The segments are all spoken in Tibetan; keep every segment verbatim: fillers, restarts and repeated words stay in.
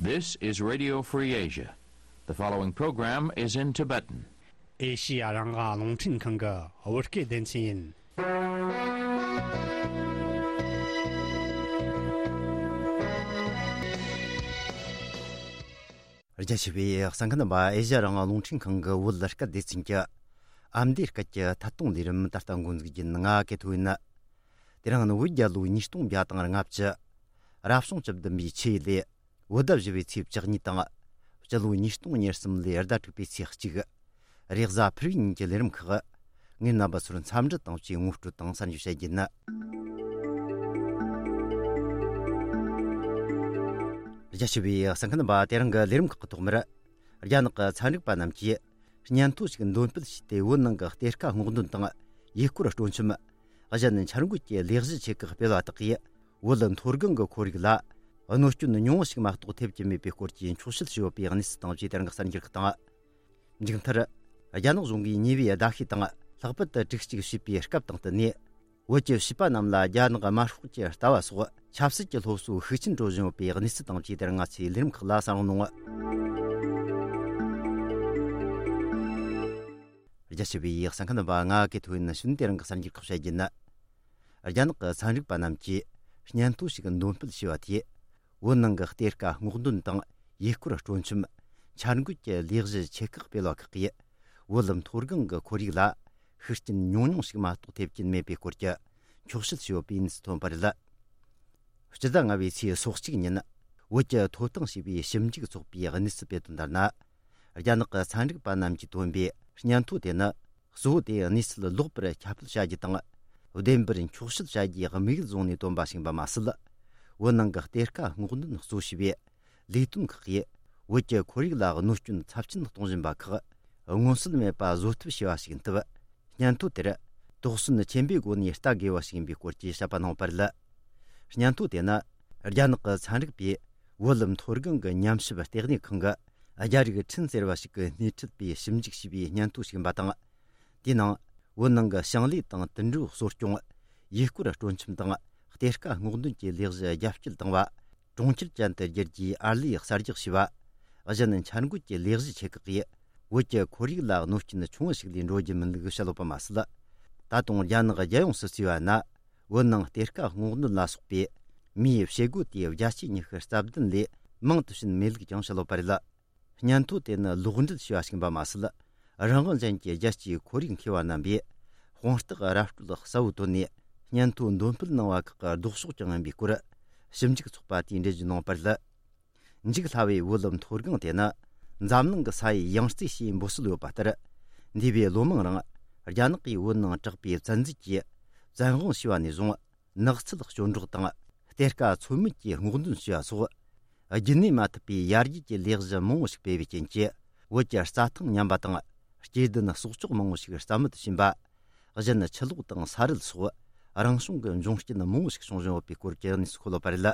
This is Radio Free Asia. The following program is in Tibetan. ཨེ་ཤི་ཡ་རང་དབང་རླུང་འཕྲིན་ཁང་གི་བོད་སྐད་སྡེ་ཚན་ཡིན། རྒྱ་ཆེ་བའི་གསན་མཁན་རྣམ་པ། ཨེ་ཤི་ཡ་རང་དབང་རླུང་འཕྲིན་ཁང་གི་བོད་སྐད་སྡེ་ཚན་གྱི་ཨ་མདོའི་སྐད་ཀྱི་ཐད་གཏོང་ལས་རིམ་ད་ལྟ་འགོ་འཛུགས་རྒྱུ་ཡིན། ང་གི་ཐོ་ཡིན། དེ་རིང་ནི་བོད་རྒྱལ་ལོ་ཉིས་སྟོང་བརྒྱ་དང་ལྔ་བཅུ། རབ་བྱུང་བཅུ་བདུན་པའི་ཆུ་ཡོས་ལོའི་བོད་ཟླ་བཞི་པའི་ཚེས་བཅུ་གཉིས་དང་། སྤྱི་ལོ་ཉིས་སྟོང་ཉེར་གསུམ་ལོའི་ཟླ་དྲུག་པའི་ཚེས་གཅིག་རེས་གཟའ་ཕུར་བུའི་ཉིན་གྱི་ལས་རིམ་ཁག་ངས་རྣམ་པ་ཚོར་འཚམས་འདྲི་དང་བཅས་ངོ་སྤྲོད་དང་གསར་འགྱུར་བཤད་རྒྱུ་ཡིན། རྒྱ་ཆེ་བའི་གསན་མཁན་རྣམ་པ། དེ་རིང་གི་ལས་རིམ་ཁག་གི་ཐོག་མར། རྒྱ་ནག་གི་ཚན་རིག་པ་རྣམས་ཀྱིས་སྙན་ཐོ་ཞིག་འདོན་སྤེལ་བྱས་ཏེ། བོད་ནང་གི་གཏེར་ཁ་སྔོག་འདོན་དང་ཡུལ་སྐོར་སྤྲོ་འཆམ། གཞན་འཆར་འགོད་ཀྱི་ལས་གཞི་ཆེ་ཁག་སྤེལ་བ་དག་གིས། བོད་མཐོ་སྒང་གི་ཁོར་ཡུག་ལ་གནོད་སྐྱོན་ཉུང་ངུ་ཞིག་མ་གཏོགས་ཐེབས་ཀྱི་མེད་པའི་སྐོར་གྱི་འཁྱོག་བཤད་བྱས་ཡོད་པའི་གནས་ཚུལ་དང་བཅས་དེ་རིང་གི་གསར་འགྱུར་ཁག་དང་། མཇུག་མཐར། རྒྱ་ནག་གཞུང་གིས་ཉེ་བའི་ཟླ་ཤས་དང་ལྷག་པར་དུ་དྲུག་གཅིག་བྱས་པའི་སྐབས་དང་བསྟུན་ནས། བོད་ཀྱི་བྱིས་པ་རྣམས་ལ་རྒྱ་ནག་དམར་ཤོག་གི་ལྟ་བ་སོགས་ཆབ་སྲིད་ཀྱི་སློབ་གསོ་ཤུགས་ཆེན་སྤྲོད་བཞིན་ཡོད་པའི་གནས་ཚུལ་དང་བཅས་དེ་རིང་ང་ཚོའི་ལས་རིམ་ཁག་ལ་གསན་རོགས་གནང་། རྒྱ་ཆེ་བའི་གསན་མཁན་རྣམ་པ། ང་གི་ཐོ་ཡིན། ནི་ཤུན་དེ་རིང་གི་གསར་འགྱུར་ཁག་བཤད་རྒྱུ་ཡིན། རྒྱ་ནག་གི་ཚན་རིག་པ་རྣམས་ཀྱིས་སྙན་ཐོ་ཞིག་འདོན་སྤེལ་བྱས་པ་དེས། བོད་ནང་གི་གཏེར་ཁ་སྔོག་འདོན་དང་ཡུལ་སྐོར་སྤྲོ་འཆམ། འཆར་འགོད་ཀྱི་ལས་གཞི་ཆེ་ཁག་སྤེལ་བ་ཁག་གིས། བོད་མཐོ་སྒང་གི་ཁོར་ཡུག་ལ་ཤུགས་རྐྱེན་ཉུང་ཉུང་ཞིག་མ་གཏོགས་ཐེབས་ཀྱིན་མེད་པའི་སྐོར་གྱི་འཁྱོག་བཤད་བྱས་ཡོད་པའི་གནས་ཚུལ་ཐོན་པ་རེད། སྤྱི་ཟླ་ལྔ་པའི་ཚེས་སོ་གཅིག་ཉིན། བོད་ཀྱི་ཐོབ་ཐང་ཞེས་པའི་ཞིབ་འཇུག་ཚོགས་པས་གནས་ཚུལ་སྤེལ་དོན་ལྟར་ན། རྒྱ་ནག་གི་ཚན་རིག་པ་རྣམས་ཀྱིས་བཏོན་པའི་སྙན་ཐོ་དེ་ནི། གཙོ་བོ་དེ་གནས་ཚུལ་ལོག་པར་ཁྱབ་སྤེལ་བྱ་རྒྱུ་དང་། བདེན་པར་འཁྱོག་བཤད་བྱ་རྒྱུའི་དམིགས་ཡུལ་བཟུང་ནས་བཏོན་པ་ཞིག་ཡིན་པ་མ་ཟད། བོད་ནང་གི་གཏེར་ཁ་སྔོག་འདོན་གཙོ་བྱས་པའི་ལས་དོན་ཁག་གིས། བོད་ཀྱི་ཁོར་ཡུག་ལ་གནོད་སྐྱོན་ཚབས་ཆེན་གཏོང་བཞིན་པ་ཁག་མངོན་གསལ་མེད་པ་བཟོ་ཐབས་བྱས་པ་ཞིག་ཡིན་སྟབས། སྙན་ཐོ་དེར་དོགས་ཟོན་ཆེན་པོའི་སྒོ་ནས་ལྟ་དགོས་པ་ཞིག་ཡིན་པའི་སྐོར་གྱི་བཤད་པ་གནང་བ་རེད། སྙན་ཐོ་དེ་ནི་རྒྱ་ནག་གི་ཚན་རིག་པས་བོད་མཐོ་སྒང་གི་ཉམས་ཞིབ་ལྟེ་གནས་ཁང་གི་རྒྱ་རིགས་ཁྲིན་ཟེར་བ་ཞིག་གིས་སྣེ་ཁྲིད་པའི་ཞིབ་འཇུག་བྱས་པའི་སྙན་ཐོ་ཞིག་ཡིན་པ་དང་། དེའི་ནང་བོད་ནང་གི་ཞིང་ལས་དང་དུད་འགྲོ་གསོ་སྐྱོང་། ཡུལ་སྐོར་སྤྲོ་འཆམ་དང་གཏེར་ཁ་སྔོག་འདོན་གྱི་ལས་གཞི་རྒྱ་སྐྱེད་བཏང་བ། གྲོང་ཁྱེར་ཅན་དུ་བསྒྱུར་རྒྱུའི་ཨར་ལས་གསར་རྒྱག་བྱས་པ། གཞན་འཆར་འགོད་ཀྱི་ལས་གཞི་ཆེ་ཁག་གིས་བོད་ཀྱི་ཁོར་ཡུག་ལ་གནོད་སྐྱོན་ཆུང་ངུ་ཞིག་ལས་འགྲོ་རྒྱུ་མིན་ལུགས་བཤད་ཡོད་པ་མ་ཟད། ད་དུང་རྒྱ་ནག་རྒྱལ་ཡོངས་སུ་བརྩིས་པ་ན། བོད་ནང་གཏེར་ཁ་སྔོག་འདོན་ལ་སོགས་པའི་མིའི་བྱེད་སྒོ་དེའི་བརྒྱ་ཆའི་ཉི་ཤུ་རྩ་བདུན་ལས་མང་དུ་ཕྱིན་མེད་ལུགས་ཀྱང་བཤད་ཡོད་པ་རེད། སྙན་ཐོ་དེ་ནི་ལོག་འགྲེལ་བྱས་པ་ཞིག་ཡིན་པ་མ་ཟད། རང་དབང་ཅན་གྱི་རྒྱལ་སྤྱིའི་ཁོར་ཡུག་མཁས་པ་རྣམ་པས་དཔང་རྟགས་ར་སྤྲོད་གསལ་བོ་བཏོན་ནས་སྙན་ཐོ་འདོན་སྤེལ་གནང་བ་ཁག་གི་ལྡོག་ཕྱོགས་ཀྱང་ཡིན་པའི་སྐོར་ཞིབ་འཇུག་ཚོགས་པ་དེས་འགྲེལ་བརྗོད་གནང་བ་རེད། འཇིག་སླ་བའི་བོད་མཐོ་སྒང་དེ་ནི་འཛམ་གླིང་གི་ས་ཡི་ཡང་རྩེ་ཞེས་འབོད་སྲོལ་ཡོད་པ་ལྟར། འདས་པའི་ལོ་མང་རིང་རྒྱ་ནག་གིས་བོད་ནང་དྲག་པོའི་བཙན་འཛུལ་གྱིས་བཙན་དབང་བྱས་པ་ནས་བཟུང་། ནགས་ཚལ་སྐྱོན་འབྲོག་དང་གཏེར་ཁ་ཚོད་མེད་ཀྱིས་སྔོག་འདོན་བྱས་པ་སོགས། རྒྱུན་གནས་མ་ཐུབ་པའི་ཡར་རྒྱས་ཀྱི་ལས་གཞི་མང་བོ་ཞིག་སྤེལ་བའི་རྐྱེན་གྱིས། བོད་ཀྱི་རྩྭ་ཐང་ཉམས་པ་དང་། སྐྱེ་ལྡན་གསོག་འཇོག་མང་བོ་ཞིག་རྩ་མེད་དུ་ཕྱིན་པ། གཞན་ཆུ་ལོག་དང་ས་རུད་སོགས་རང་བྱུང་གི་འབྱུང་རྐྱེན་མང་བོ་ཞིག་བྱུང་བཞིན་ཡོད་པའི་སྐོར་གྱི་གནས་ཚུལ་འཁོད་ཡོད་པ་རེད།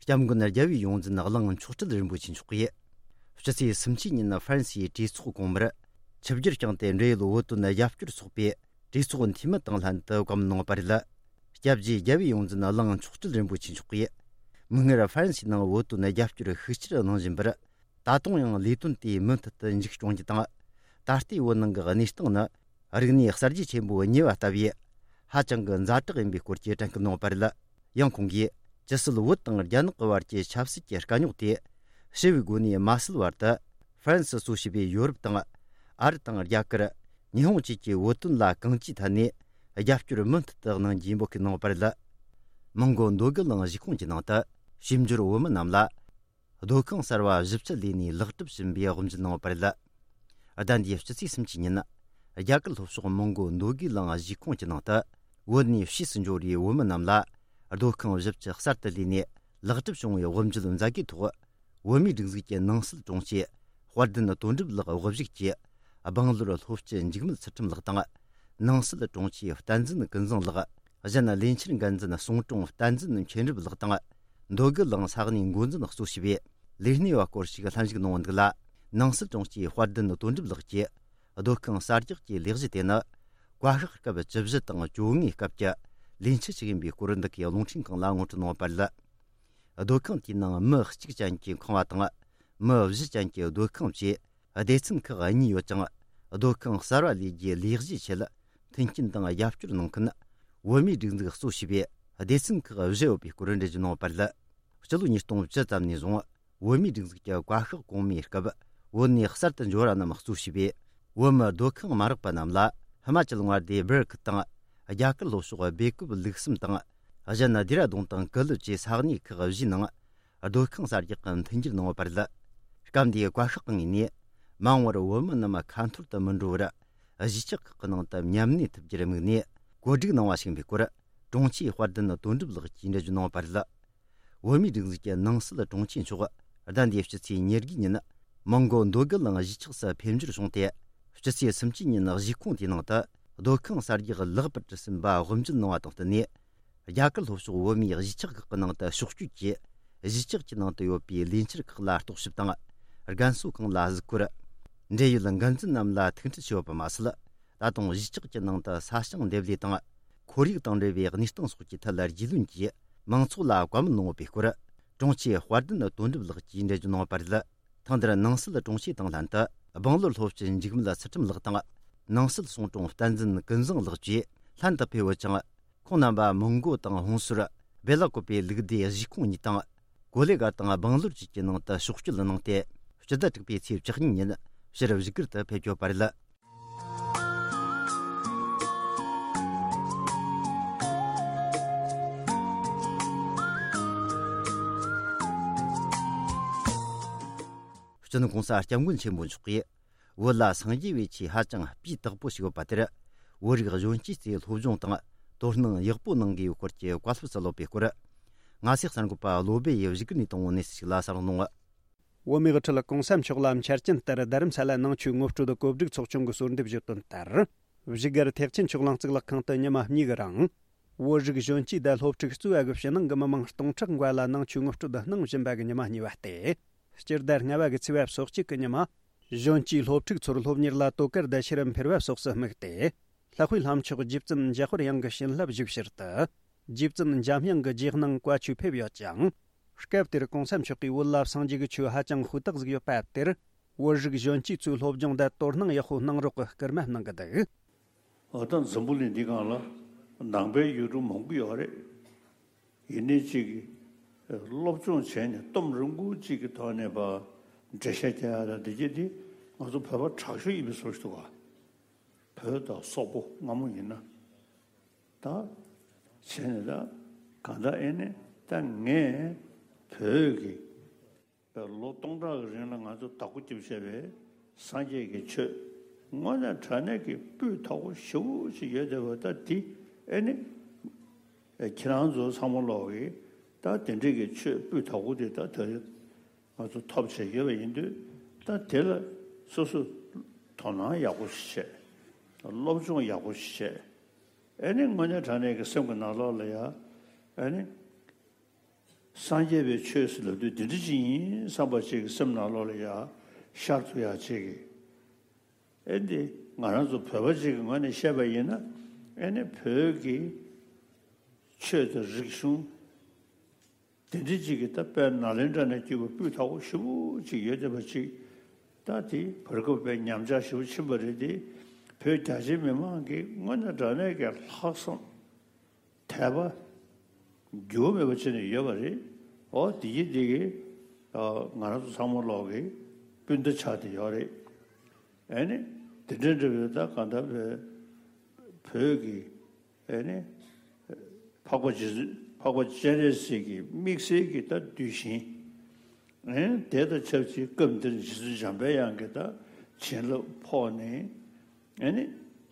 སྐྱབས་མགོན་རྒྱལ་བའི་ཡོངས་འཛིན་གླིང་མཆོག་སྤྲུལ་རིན་པོ་ཆེ་མཆོག་གིས། ཕྱི་ཚེས་སུམ་ཅུ་ཉིན་ཧྥ་རན་སིའི་གྲོས་ཚོགས་གོང་མར། ཆིབས་བསྒྱུར་བསྐྱངས་ཏེ། འབྲེལ་ཡོད་བོད་དོན་རྒྱབ་སྐྱོར་ཚོགས་པའི་གྲོས་ཚོགས་འཐུས་མི་དང་ལྷན་དུ་བཀའ་མོལ་གནང་བ་རེད། སྐྱབས་རྗེ་རྒྱལ་བའི་ཡོངས་འཛིན་གླིང་མཆོག་སྤྲུལ་རིན་པོ་ཆེ་མཆོག་གིས། མིག་སྔར་ཧྥ་རན་སིའི་ནང་བོད་དོན་རྒྱབ་སྐྱོར་ཤུགས་ཆེར་གནང་བཞིན་པར། ད་དུང་ཡང་ལས་དོན་དེ་མུ་མཐུད་དུ་མཇུག་སྐྱོང་རྒྱུ་དང་། ད་ལྟའི་བོད་ནང་གི་གནས་སྟངས་ནི། རིག་གནས་གསར་བརྗེ་ཆེན་པོའི་ཉེས་པ་ལྟ་བུའི་ཧ་ཅང་གི་ཛ་དྲག་ཡིན་པའི་སྐོར་གྱི་དྲན་སྐུལ་གནང་བ་རེད། ཡང་ཁོང་གིས། ཇི་སྲིད་བོད་དང་རྒྱ་ནག་གི་བར་གྱི་ཆབ་སྲིད་ཀྱི་དཀའ་རྙོག་དེ་ཞི་བའི་སྒོ་ནས་མ་སེལ་བར་དུ། ཧྥ་རན་སི་གཙོ་བྱས་པའི་ཡོ་རོབ་དང་། ཨ་རི་དང་རྒྱ་གར། ཉི་ཧོང་བཅས་ཀྱིས་བོད་དོན་ལ་གང་ཅིའི་ཐད་ནས་རྒྱབ་སྐྱོར་མུ་མཐུད་དུ་གནང་རྒྱུའི་འབོད་སྐུལ་གནང་བ་རེད། མོན་གོ་མདོ་སྒུག་གླིང་གཞིས་ཁོངས་ཀྱི་ནང་དུ་ཞིབ་འཇུག་བོད་མི་རྣམས་ལ། སྡོད་ཁང་གསར་བ་བཞི་བཅུ་ལས་གནས་ལེགས་གྲུབ་ཕྱིན་པའི་དབུ་འབྱེད་གནང་བ་རེད། ཟླ་འདིའི་སྤྱི་ཚེས་སུམ་ཅུ་ཉིན། རྒྱ་གར་ལྷོ་ཕྱོགས་མོན་གོ་མདོ་སྒུག་གླིང་གཞིས་ཁོངས་ཀྱི་ནང་དུ། བོད་ནས་ཕྱིས་སུ་འབྱོར་བའི་བོད་མི་རྣམས་ལ། སྡོད་ཁང་བཞི་བཅུ་གསར་དུ་ལས་ནས་ལེགས་གྲུབ་བྱུང་བའི་དབུ་འབྱེད་མཛད་སྒོའི་ཐོག་བོད་མིའི་སྒྲིག་འཛུགས་ཀྱི་ནང་སྲིད་དྲུང་ཆེ། དཔལ་ལྡན་དོན་གྲུབ་ལགས་དབུ་བཞུགས་ཀྱིས། སྦེང་ལོར་ལྷོ་སྤྱི་འཇིགས་མེད་ཚུལ་ཁྲིམས་ལགས་དང་། ནང་སྲིད་དྲུང་ཆེ་བསྟན་འཛིན་ཀུན་བཟང་ལགས། གཞན་ལས་འཆར་འགན་འཛིན་གསུང་དྲུང་བསྟན་འཛིན་མཁྱེན་རབ་ལགས་དང་། མདོ་སྒུག་གླིང་ས་གནས་འགོ་འཛིན་གཙོ་བྱས་པའི་ལས་སྣེ་བ་སྐོར་ཞིག་ལྷན་ཞུགས་གནང་བ་འདུག་ལ། ནང་སྲིད་དྲུང་ཆེ་དཔལ་ལྡན་དོན་གྲུབ་ལགས་ཀྱིས། སྡོད་ཁང་གསར་རྒྱག་གི་ལས་གཞི་དེ་ནི། བཀའ་ཤག་སྐབས་བཅུ་བཞི་དང་བཅོ་ལྔའི་སྐབས་ཀྱི་ལས་འཆར་ཞིག་ཡིན་པའི་སྐོར། འདི་གའི་རླུང་འཕྲིན་ཁང་ལ་ངོ་སྤྲོད་གནང་བ་རེད། སྡོད་ཁང་དེའི་ནང་མི་གཅིག་ཅན་གྱི་ཁང་བ་དང་། མི་བཞི་ཅན་གྱི་སྡོད་ཁང་བཅས་སྡེ་ཚན་ཁག་གཉིས་ཡོད་ཅིང་། སྡོད་ཁང་གསར་བ་ལས་རྒྱུའི་ལས་གཞིའི་ཆེད་མཐུན་རྐྱེན་དང་རྒྱབ་སྐྱོར་གནང་མཁན་བོད་མིའི་སྒྲིག་འཛུགས་གཙོ་བྱས་པའི་སྡེ་ཚན་ཁག་བཞི་ཡོད་པའི་སྐོར་འགྲེལ་བརྗོད་གནང་བ་རེད། སྤྱི་ལོ་ཉིས་སྟོང་བཅུ་ཙམ་ནས་བཟུང་བོད་མིའི་སྒྲིག་འཛུགས་ཀྱི་བཀའ་ཤག་གོང་མའི་སྐབས་བོད་ནས་གསར་དུ་འབྱོར་བ་རྣམས་གཙོ་བྱས་པའི་བོད་མི་སྡོད་ཁང་མ་རག་པ་རྣམས་ལ་ཧི་མ་ཅལ་མངའ་སྡེའི་སྦིར་ཁུལ་དང་། རྒྱ་གར་ལྷོ་ཕྱོགས་སྦེ་ཀུབ་ལུག་གསུམ་དང་། གཞན་སྡེ་ར་ལྡུན་དང་ཀུ་ལུ་བཅས་ས་གནས་ཁག་བཞིའི་ནང་སྡོད་ཁང་གསར་རྒྱག་གི་མཐུན་འགྱུར་གནང་ཡོད་པ་རེད། སྐབས་འདིའི་བཀའ་ཤག་ངོས་ནས་མ་འོངས་པར་བོད་མི་རྣམས་ཁ་འཐོར་དུ་མི་འགྲོ་བར་གཞིས་ཆགས་ཁག་གི་ནང་དུ་མཉམ་གནས་ཐུབ་རྒྱུར་དམིགས་ནས་བཀོད་སྒྲིག་གནང་བ་ཞིག་ཡིན་པའི་སྐོར་དྲུང་ཆེ་དཔལ་ལྡན་དོན་གྲུབ་ལགས་ཀྱིས་འགྲེལ་བརྗོད་གནང་ཡོད་པ་རེད། བོད་མིའི་སྒྲིག་འཛུགས་ཀྱི་ནང་སྲིད་དྲུང་ཆེ་མཆོག་ཟླ་འདིའི་ཕྱི་ཚེས་ཉེར་དགུའི་ཉིན་མོན་གྷོ་འདོད་རྒུ་གླིང་གཞིས་ཆགས་སུ་ཕེབས་འབྱོར་བྱུང་སྟེ། ཕྱི་ཚེས་སུམ་ཅུའི་ཉིན་གཞིས་ཁོངས་དེའི་ནང་དུ་སྡོད་ཁང་གསར་རྒྱག་ལེགས་པར་ཟིན་པ་དབུ་འབྱེད་གནང་བ་དང་བསྟུན་ནས། རྒྱ་གར་ལྷོ་ཕྱོགས་བོད་མིའི་གཞིས་ཆགས་ཁག་གི་ནང་དུ་ཕྱོགས་བསྐྱོད་ཀྱིས་གཞིས་ཆགས་ཀྱི་ནང་དུ་ཡོད་པའི་ལས་འཆར་ཁག་ལ་རྟོག་ཞིབ་དང་། རྒན་གསོ་ཁང་ལ་གཟིགས་སྐོར། འབྲེལ་ཡོད་འགན་འཛིན་རྣམས་ལ་ཐུག་འཕྲད་བྱས་ཡོད་པ་མ་ཟད། ད་དུང་གཞིས་ཆགས་ཀྱི་ནང་དུ་ས་ཞིང་འདེབས་ལས་དང་། ཁོར་ཡུག་དང་འབྲེལ་བའི་གནས་སྟངས་སོགས་ཀྱི་ཐད་ལ་རྒྱུས་ལོན་གྱིས་མང་ཚོགས་ལ་བཀའ་མོལ་གནང་ཡོད་པའི་སྐོར། དྲུང་ཆེ་དཔལ་ལྡན་དོན་གྲུབ་ལགས་ཀྱིས་འགྲེལ་བརྗོད་གནང་བ་རེད། ཐེངས་འདིར་ནང་སྲིད་དྲུང་ཆེ་དང་ལྷན་དུ་སྦང་ལོར་སློབ་སྤྱི་འཇིགས་མེད་ཚུལ་ཁྲིམས་ལགས་དང་། ནང་སྲིད་སྲུང་དྲུང་བསྟན་འཛིན་ཀུན་བཟང་ལགས་བཅས་ལྷན་དུ་ཕེབས་ཡོད་ཅིང་། ཁོང་རྣམ་པ་མོན་གྷོ་དང་ཧོན་སུར། སྦེ་ལ་ཀོ་པའི་ལུགས་སྡེ་གཞིས་ཁོངས་གཉིས་དང་། གོ་ལེ་གར་དང་སྦང་ལོར་བཅས་ཀྱི་ནང་དུ་ཕྱོགས་བསྐྱོད་གནང་སྟེ། སྤྱི་ཟླ་དྲུག་པའི་ཚེས་བཅུ་གཉིས་ཉིན་ཕྱིར་བཞུགས་སྒར་དུ་ཕེབས་ཡོད་པ་རེད། སྤྱི་ནོར་༸གོང་ས་༸སྐྱབས་མགོན་ཆེན་པོ་མཆོག་གིས། བོད་ལ་སངས་རྒྱས་པའི་ཆོས་ཧ་ཅང་སྤུས་དག་པོ་ཞིག་ཡོད་པ་དེར། བོད་རིགས་གཞོན་སྐྱེས་ཚོས་སློབ་སྦྱོང་དང་དོ་སྣང་ཡག་པོ་གནང་དགོས་ཡོད་སྐོར་གྱི་བཀའ་སློབ་སྩལ་ཡོད་པའི་སྐོར། ང་ཚོའི་གསར་འགོད་པ་བློ་སྦེ་ཡིས་བཞུགས་སྒར་ནས་བཏང་བའི་གནས་ཚུལ་ཞིག་ལ་གསན་རོགས་གནང་། བོད་མིའི་དབུ་ཁྲིད་༸གོང་ས་མཆོག་ལ་འཆར་ཅན་ལྟར་རྡ་རམ་ས་ལ་ནང་ཆོས་ངོ་སྤྲོད་གོ་སྒྲིག་ཚོགས་ཆུང་གིས་གསོལ་འདེབས་ཞུས་དོན་ལྟར། བཞུགས་སྒར་ཐེག་ཆེན་ཆོས་གླིང་གཙུག་ལག་ཁང་དུ་ཉི་མ་གཉིས་ཀྱི་རིང་། བོད་རིགས་གཞོན་སྐྱེས་དང་སློབ་ཕྲུག་གཙོས་པ་གི་ཕྱི་ནང་གི་མི་མང་སྟོང་ཕྲག་འགའ་ལ་ནང་ཆོས་ངོ་སྤྲོད་གནང་བཞིན་པ་གི་ཉི་མ་གཉིས་པ་སྟེ། སྤྱི་ཟླ་ལྔ་པ་གི་ཚེས་པ་སོ་གཅིག་གི་ཉི་མ། གཞོན་སྐྱེས་སློབ་ཕྲུག་ཚོར་སློབ་གཉེར་ལ་དོ་ཁུར་དང་ཤེས་རབ་འཕེལ་བ་སོགས་སུ་དམིགས་ཏེ། ལྷག་པའི་ལྷ་མཆོག་རྗེ་བཙུན་འཇམ་དཔལ་དབྱངས་ཀྱི་བྱིན་རླབས་ཞུགས་ཕྱིར་དུ། རྗེ་བཙུན་འཇམ་དབྱངས་ཀྱི་རྗེས་གནང་བཀའ་ཆོས་ཕེབས་ཡོད་ཅིང་། སྐབས་དེར་༸གོང་ས་མཆོག་གིས་བོད་ལ་སངས་རྒྱས་ཀྱི་ཆོས་ཧ་ཅང་ཧུར་ཐག་ཟིག་ཡོད་པ་དེར། བོད་རིགས་གཞོན་སྐྱེས་ཚོས་སློབ་སྦྱོང་དང་དོ་སྣང་ཡག་པོ་གནང་རོགས་ཀྱི་སྐུལ་མ་གནང་གི་འདུག། འོ་ད་འཛམ་བུ་གླིང་འདི་སྒང་ལ་ནང་པའི་ཡུལ་གྲུ་མང་པོ་ཡོད་རེད། ཡིན་ནའི་གཅིག་གིས་སློབ་སྦྱོང་བྱས་ནས་གཏུམ་རིང་པོ་གཅིག་གི་ཐོག་ནས་པ་འགྲེལ་བཤད་རྒྱག་ཡ་ལ་འདི་གྱད་འདི་ང་ཚོ་བོད་པ་དྲག་ཤོས་ཡིན་པའི་བཟོ་ཞིག་འདུག་ག། བོད་དང་སོག་པོ་སྔ་མོ་ཡིན་ན། ད་བྱས་ནས་ད་གང་ལྟར་ཨེ་ནས་ད་ངས་བོད་ཀྱི་ལོ་སྟོང་ཕྲག་གི་རིང་ལ་ང་ཚོ་བདག་པོ་རྒྱབ་བྱས་པའི་སངས་རྒྱས་ཀྱི་ཆོས་དངོས་གནས་དྲང་གནས་ཀྱི་སྤུས་དག་པོ་ཞེ་པོ་ཅིག་ཡོད་བསྡད་པ་ད་འདི་ཨེ་ནི་ཁྱེད་རང་ཚོ་ཚང་མ་ལོག་གིས་ད་དེ་འདྲས་ཀྱི་ཆོས་སྤུས་དག་པོ་དེ་ད་ད་རེས་ང་ཚོ་ཐོབ་བྱས་ཡོད་པ་ཡིན་དུས་ད་དེ་ལ་སོ་སོ་དོ་སྣང་ཡག་པོ་ཞིག་བྱས། སློབ་སྦྱོང་ཡག་པོ་ཞིག་བྱས། ཨེ་ནི་དངོས་གནས་དྲང་གནས་ཀྱི་སེམས་ཀྱི་ནང་ལོགས་ལ་ཡ་ཨེ་ནི། སངས་རྒྱས་པའི་ཆོས་ཟེར་ལབ་དུས་འདི་འདྲ་ཅིག་ཡིན་བསམ་པ་ཅིག་གི་སེམས་ནང་ལོགས་ལ་ཡ་ཤར་ཐུབ་ཡག་ཅིག་གི། ཨེ་འདི་ང་རང་ཚོ་བོད་པ་ཅིག་གི་ངོས་ནས་བཤད་པ་ཡིན་ན་ཨེ་ནི་བོད་ཀྱི་ཆོས་དང་རིག་གཞུང་དེ་འདྲ་ཅིག་གི་ད་དཔེ་ནཱ་ལེནྡྲ་ནས་བརྒྱུད་པའི་སྤུས་དག་པོ་ཞེ་པོ་ཅིག་ཡོད་བསྡད་པ་ཅིག་ད་དེ་བར་སྐབས་དཔེ་ཉམས་ཆག་ཞེ་པོ་ཕྱིན་པ་རེད་དེ། བོད་རྒྱ་ཆེའི་མི་མང་གི་དངོས་གནས་དྲང་གནས་ཀྱི་ལྷག་བསམ། དད་པ། འགྱུར་བ་མེད་པ་བྱས་ནས་ཡོད་པ་རེད། འོ་དེ་གི་དེ་གི་ང་རང་ཚོ་ཚང་མ་ལོག་གི་སྤུན་ཟླ་ཆགས་བསྡད་ཡོད་རེད། ཨེ་ནི་དེ་འདྲ་འདྲ་བའི་ད་གང་ལྟར་བའི་བོད་ཀྱི་ཨེ་ནི་འཕགས་པ་རྗེ་བཙུན་འཕགས་པ་སྤྱན་རས་གཟིགས་ཀྱི་དམིགས་བསལ་གྱི་ད་གདུལ་ཞིང་། ཨེ་དེ་དང་ཆབས་ཅིག་སྐབས་འདིར་རྗེ་བཙུན་འཇམ་པའི་དབྱངས་ཀྱི་ད་བྱིན་རླབས་ཕོག་ནས་ཨེ་ནི་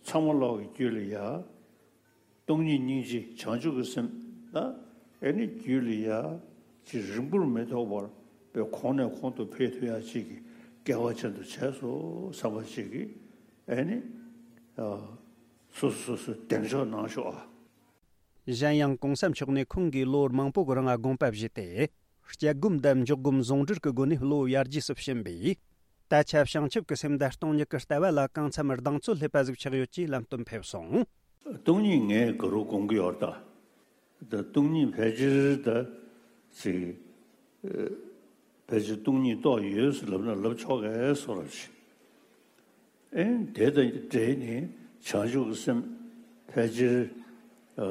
ཚང་མ་ལོག་གི་རྒྱུད་ལ་ཡ། སྟོང་ཉིད་སྙིང་རྗེ་བྱང་ཆུབ་ཀྱི་སེམས་ལ་ཨེ་ནི་རྒྱུད་ལ་ཡ་ཅིག་རིང་པོར་མི་ཐོགས་པར་པའི་གོང་ནས་གོང་དུ་འཕེལ་ཐུབ་ཡ་ཅིག་གི་སྐལ་བ་ཅན་དུ་བྱས་སོ་བསམ་པ་ཅིག་གི་ཨེ་ནི་སོ་སོ་སོ་སོ་གདེང་འཇོག་གནང་ཤོག་ཨ། གཞན་ཡང་༸གོང་ས་མཆོག་ནས་ཁོང་གིས་ལོ་མང་པོ་གི་རིང་དགོངས་པ་བཞེས་ཏེ། སྐྱབས་སྒོམ་དང་འཇོག་སྒོམ་ཟུང་འབྲེལ་གྱི་སྒོ་ནས་བློ་ཡར་རྒྱས་སུ་ཕྱིན་པས། ད་ཆ་བྱང་ཆུབ་ཀྱི་སེམས་དང་སྟོང་ཉིད་ཀྱི་ལྟ་བ་ལ་གང་འཚམ་གདེང་ཚོད་སླེབས་པ་ཟིག་ཆགས་ཡོད་ཅེས་ལམ་སྟོན་ཕེབས་སོང་། སྟོང་ཉིད་ངས་ག་རུ་དགོངས་ཀྱི་ཡོད་ད། ད་སྟོང་ཉིད་ཕལ་ཆེར་ད་ཅིག་ ཕལ་ཆེར་སྟོང་ཉིད་རྟོགས་ཡོད་ཟེར་ལབ་ན་ལབ་ཆོག་གས་སོ་རབ་ཞིག་ཨེ་དེ་དང་འབྲེལ་ནས་བྱང་ཆུབ་ཀྱི་སེམས་ཕལ་ཆེར་ཨ་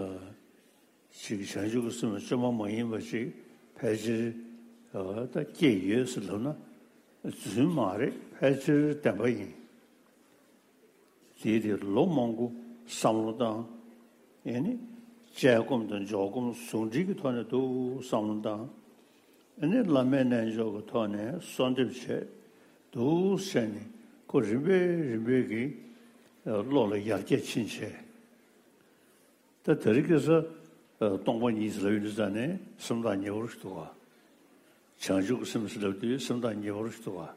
ཅིག་བྱང་ཆུབ་ཀྱི་སེམས་བཅོས་མ་མ་ཡིན་པ་ཅིག་ཕལ་ཆེར་ཨ་ད་སྐྱེས་ཡོད་ཟེར་ལབ་ན་རྫུན་མ་རེད། ཕལ་ཆེར་བདེན་པ་ཡིན། དེའི་དེ་ལོ་མང་པོ་བསམ་བློ་བཏང་། ཨེ་ནི་དཔྱད་སྒོམ་དང་འཇོག་སྒོམ་ཟུང་འབྲེལ་གྱི་ཐོག་ནས་འདུག་བསམ་བློ་བཏང་། ཨེ་ནི་བླ་མའི་རྣལ་འབྱོར་གྱི་ཐོག་ནས་གསོལ་འདེབས་བྱས་འདུག་བྱས་ནས་ཁོ་རིམ་པས་རིམ་པས་ཀྱིས་བློ་ལ་ཡར་རྒྱས་ཕྱིན་བྱས། ད་དེ་རིང་ཁ་སང་སྟོང་པ་ཉིད་ཟེར་ལབ་ཡོང་དུས་ཙང་ནས་སེམས་ཐག་ཉེ་བོ་ཞིག་འདུག་ག་བྱང་ཆུབ་ཀྱི་སེམས་ཟེར་ལབ་དུས་སེམས་ཐག་ཉེ་བོ་ཞིག་འདུག་ག་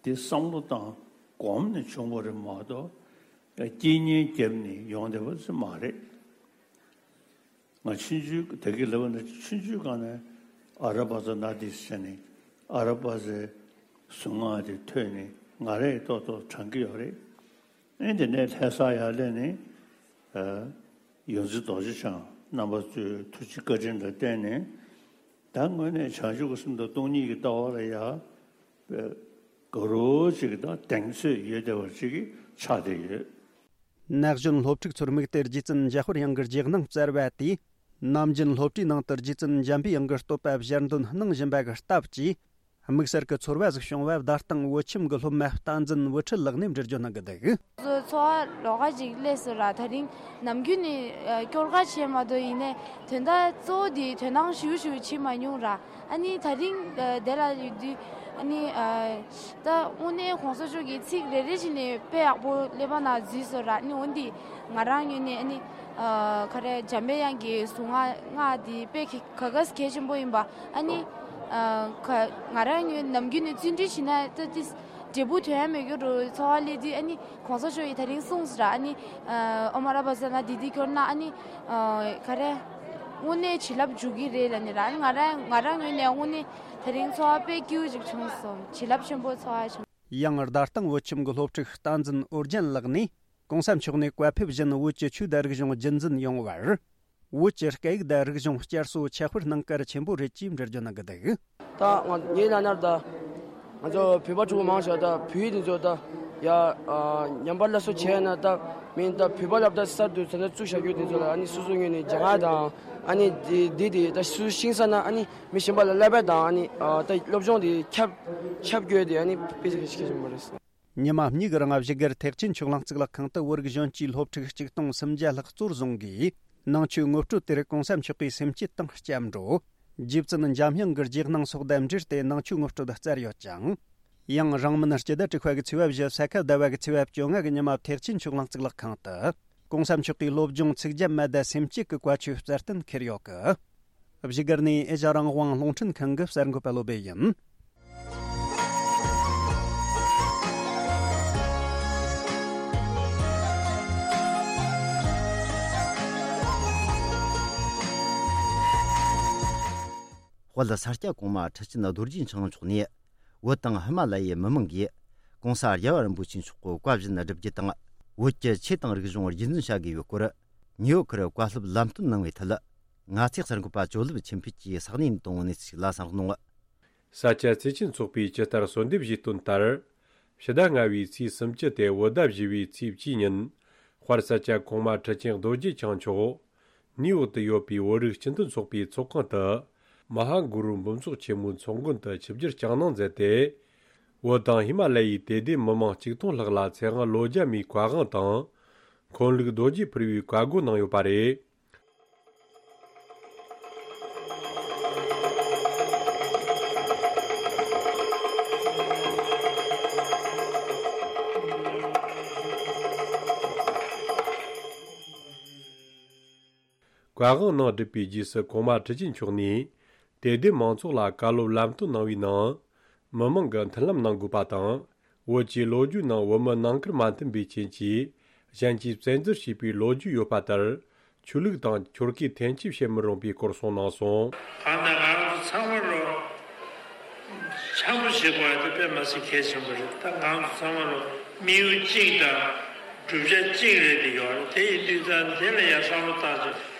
དེ་བསམ་བློ་བཏང་གོམས་ནས་བྱུང་བ་རེད་མ་གཏོགས་རྐྱེན་ངན་བརྒྱབ་ནས་ཡོང་བསྡད་པ་ཙམ་མ་རེད། ང་ཆུང་ཆུང་དེ་གི་ལབ་ན་ཆུང་ཆུང་སྒང་ནས་ཨ་ར་པ་ཙ་ན་དི་ཟེར་ནས་ཨ་ར་པ་ཙའི་གཟུངས་སྔགས་དེ་ཐོས་ནས་ང་རང་ཡང་ཏོག་ཏོག་དྲན་གྱི་ཡོད་རེད། ཨེ་དེ་ནས་ལྷ་ས་ཡར་སླེབས་ནས་ཨ་ཡོངས་འཛིན་རྡོ་རྗེ་འཆང་རྣམ་པ་ཚོའི་ཐུགས་རྗེ་བཀའ་དྲིན་ལ་བརྟེན་ནས་ད་དངོས་གནས་བྱང་ཆུབ་ཀྱི་སེམས་དང་སྟོང་ཉིད་ཀྱི་ལྟ་བ་ལ་ཡ་དགའ་རབ་ཅིག་དང་གདེང་ཚོད་ཡོད་བསྡད་པ་ཅིག་ཆགས་བསྡད་ཡོད། ན་གཞོན་སློབ་ཕྲུག་ཚོར་དམིགས་ཏེ་རྗེ་བཙུན་འཇམ་དཔལ་དབྱངས་ཀྱི་རྗེས་གནང་སྩལ་བ་དེས། ནམ་རྒྱུན་སློབ་གྲྭའི་ནང་དུ་རྗེ་བཙུན་འཇམ་པའི་དབྱངས་ཀྱི་བསྟོད་པ་ཞལ་འདོན་གནང་བཞིན་པ་གི་སྟབས་ཀྱིས། དམིགས་བསལ་གྱི་ཚོར་བ་ཟིག་བྱུང་བ་བརྡ་སྟེང་བོད་ཁྱིམ་གྱི་སློབ་མ་བསྟན་འཛིན་བུ་ཁྲིད་ལགས་ནས་འགྲེལ་བརྗོད་གནང་གི་འདུག་ཚོ་ཚོ་བ་ལོགས་ཀ་ཅིག་སླེབས་སོང་ར། དེ་རིང་ནམ་རྒྱུན་ནས་ཨ་སྐྱོར་ག་བྱས་མ་གཏོགས་ཡིན་ནའི་དོན་དག་གཙོ་བོ་དེ་དོ་སྣང་ཞུ་ཞུ་བྱེད་མ་མྱོང་ར། ཨ་ནི་དེ་རིང་ཨ་དེ་ལ་ཡོད་དུས་ཨ་ནི་ཨ་ད་དངོས་གནས་གོང་ས་མཆོག་གི་ཚིག་རེ་རེ་བཞིན་ནས་དཔེ་ཡག་པོ་ཀླད་པ་ནང་འཛུལ་སོང་ར། ཨ་ནི་འོན་ཏེ་ང་རང་ངོས་ནས་ཨ་ནི་ཨ་ག་རེ་འཇམ་པའི་དབྱངས་ཀྱི་གཟུངས་སྔགས་སྔགས་དེ་དཔེ་ག་ག་གལ་ཆེན་པོ་ཡིན་པ། ཨ་ནི་ཨ་ག་ང་རང་ངོས་ནམ་རྒྱུན་ནས་བརྩོན་འགྲུས་བྱེད་ན་ད་ཏིས་འབྲས་བུ་ཐོན་ཡ་མེད་རྒྱུ་རུ་ཚོར་བ་སླེབས་དུས། ཨ་ནི་གོང་ས་མཆོག་གིས་དེ་རིང་གསུངས་སོང་ར། ཨ་ནི་ཨ་ཨོཾ་ཨ་ར་པ་ཙ་ན་དྷཱིཿ་དེ་སྐྱོར་ན་ཨ་ནི་ཨ་ག་རེ་དངོས་གནས་བྱིན་རླབས་འཇུག་གི་རེད་ལབ་ནི་ར། ཨ་ནི་ང་རང་ང་རང་ངོས་ནས་དངོས་གནས་དེ་རིང་ཚོར་བ་དཔེ་སྐྱིད་པོ་ཅིག་བྱུང་སོང་། བྱིན་རླབས་ཆེན་པོ་ཚོར་བ་བྱུང་། ཡང་རྡ་སྟེང་བོད་ཁྱིམ་གྱི་སློབ་ཕྲུག་བསྟན་འཛིན་ཨོ་རྒྱན་ལགས་ནས། གོང་ས་མཆོག་ནས་བཀའ་ཕེབས་བཞིན་བོད་ཀྱི་ཆོས་དང་རིག་གཞུང་རྒྱུན་འཛིན་ཡོང་བར། བོད་ཀྱི་སྐད་ཡིག་དང་རིག་གཞུང་བསྐྱར་གསོ་ཁྱབ་སྤེལ་གནང་གལ་ཆེན་པོ་རེད་ཅེས་འགྲེལ་བརྗོད་གནང་གི་འདུག་ད་ང་ངའི་ལབ་ན་ད་ང་ཚོ་བོད་པ་ཕྲུ་གུ་མང་ཆེ་བ་ད་བོད་ཡིག་དེ་ཚོ་ད་ཡ་ཨ་ཉམས་པ་སླར་གསོ་བྱས་ན་ད་མིན་ད་བོད་པ་སློབ་གྲྭ་གསར་དུ་ད་ལྟ་བཙུགས་བཞག་རྒྱུ་དེ་ཚོ་ལ་ཨ་ནི་སོ་སོ་ངོས་ནས་སྦྱང་ཡ་དང་ཨ་ནི་དེ་དེ་དེ་ད་སོ་སོ་ཤེས་ས་ན་ཨ་ནི་མི་གཞན་པ་ལ་བསླབ་པ་དང་ཨ་ནི་ཨ་ད་སློབ་སྦྱོང་དེ་ཁྱབ་ཁྱབ་དགོས་དེ་ཨ་ནི་དཔེ་གལ་ཆེན་པོ་རེད། ཉི་མ་གཉིས་ཀྱི་རིང་བཞུགས་སྒར་ཐེག་ཆེན་ཆོས་གླིང་གཙུག་ལག་ཁང་དུ་བོད་རིགས་གཞོན་སྐྱེས་སློབ་ཕྲུག་ཆིག་སྟོང་སུམ་བརྒྱ་ལྷག་གཙོར་བཟུང་གིས་ནང་ཆོས་ངོ་སྤྲོད་དེར་གོང་ས་མཆོག་གིས་སེམས་བསྐྱེད་དང་སྐྱབས་འགྲོ། རྗེ་བཙུན་འཇམ་དབྱངས་ཀྱི་རྗེས་གནང་སོགས་དང་འབྲེལ་ཏེ་ནང་ཆོས་ངོ་སྤྲོད་སྩལ་ཡོད་ཅིང་། ཡང་རིང་མིན་སྤྱི་ཟླ་དྲུག་པ་གི་ཚེས་པ་བཞི་ས་ཁ་ཟླ་བ་གི་ཚེས་པ་བཅོ་ལྔ་གི་ཉི་མ་ཐེག་ཆེན་ཆོས་གླིང་གཙུག་ལག་ཁང་དུ་གོང་ས་མཆོག་གིས་སློབ་སྦྱོང་ཚིག་བརྒྱ་མ་དང་སེམས་བསྐྱེད་ཀྱི་བཀའ་ཆོས་སྩལ་གཏན་འཁེལ་ཡོད་སྐད། བཞུགས་སྒར་ནས་ཨེ་ཤ་རང་དབང་རླུང་འཕྲིན་ཁང་གི་གསར་འགོད་པ་བློ་བྷེ་ཡིན། དཔལ་ས་སྐྱ་གོང་མ་ཁྲི་ཆེན་རྡོ་རྗེ་འཆང་མཆོག་ནས་བོད་དང་ཧི་མ་ལ་ཡའི་མི་མང་གིས་༸གོང་ས་རྒྱལ་བ་རིན་པོ་ཆེ་མཆོག་གི་བཀའ་བཞིན་བསྒྲུབ་རྒྱུ་དང་བོད་ཀྱི་ཆོས་དང་རིག་གཞུང་རྒྱུན་འཛིན་བྱ་དགོས་པའི་སྐོར་ནིའུ་ཡོག་གི་བཀའ་སློབ་ལམ་སྟོན་གནང་བའི་ཐད། ང་ཚོའི་གསར་འགོད་པ་ཇོ་ལེབ་ཆོས་འཕེལ་གྱིས་ས་གནས་དང་གནས་ཚུལ་ཞིག་ལ་གསན་རོགས་གནང་། ས་སྐྱ་བརྩེ་ཆེན་ཚོགས་པས་ཇི་ལྟར་གསོལ་འདེབས་ཞུས་དོན་ལྟར། ཕྱི་ཟླ་ལྔ་བའི་ཚེས་སུམ་ཅུ་སྟེ་བོད་ཟླ་བཞི་བའི་ཚེས་བཅུའི་ཉིན། དཔལ་ས་སྐྱ་གོང་མ་ཁྲི་ཆེན་རྡོ་རྗེ་འཆང་མཆོག་ནིའུ་ཡོག་ཏུ་ཡོད་པའི་བོད་རིགས་སྤྱི་མཐུན་ཚོགས་པའི་ཚོགས་ཁང་དུ། མ་ཧཱ་གུ་རུ་འབུམ་ཚོགས་ཆེན་མོའི་ཚོགས་མགོན་དུ་ཆིབས་བསྒྱུར་བསྐྱངས་གནང་མཛད་དེ། བོད་དང་ཧི་མ་ལ་ཡའི་དད་ལྡན་མི་མང་གཅིག་སྟོང་ལྷག་ལ་ཚེ་དབང་ལོ་བརྒྱ་མའི་བཀའ་དབང་དང་། འཁོན་ལུགས་རྡོ་རྗེ་ཕུར་བུའི་བཀའ་བསྒོ་གནང་ཡོད་པ་རེད། བཀའ་དབང་ནང་བསྒྲུབས་པའི་རྗེས་སུ་གོང་མ་ཁྲི་ཆེན་མཆོག་ནས་དད་ལྡན་མང་ཚོགས་ལ་བཀའ་སློབ་ལམ་སྟོན་གནང་བའི་ནང་། མི་མང་གི་མཐུན་ལམ་གནང་དགོས་པ་དང་། བོད་ཀྱི་ལོ་རྒྱུས་ནང་བོད་མི་ནང་ཁུལ་མ་མཐུན་པའི་རྐྱེན་གྱིས་གཞན་གྱིས་བཙན་འཛུལ་བྱས་པའི་ལོ་རྒྱུས་ཡོད་པ་ལྟར། ཆོས་ལུགས་དང་ཆོལ་ཁའི་འཐེན་འཁྱེར་བྱེད་མི་རུང་པའི་སྐོར་གསུངས་གནང་སོང་། གང་ལྟར་ང་རང་ཚོ་ཚང་མ་ལོ་འཆམ་པོ་བྱེད་དགོས་ཡ་དེ་དཔེ་མ་སྲིད་གལ་ཆེན་པོ་རེད། ད་ང་རང་ཚོ་ཚང་མ་ལོ་དམིགས་ཡུལ་གཅིག་དང་བསྒྲུབ་བྱ་གཅིག་རེད་དེ་ཡོད་རེད། དེ་ཡིན་དུས་ད་དེ་ལ་ཡ་བསམ་བློ་བཏང་ཚེ་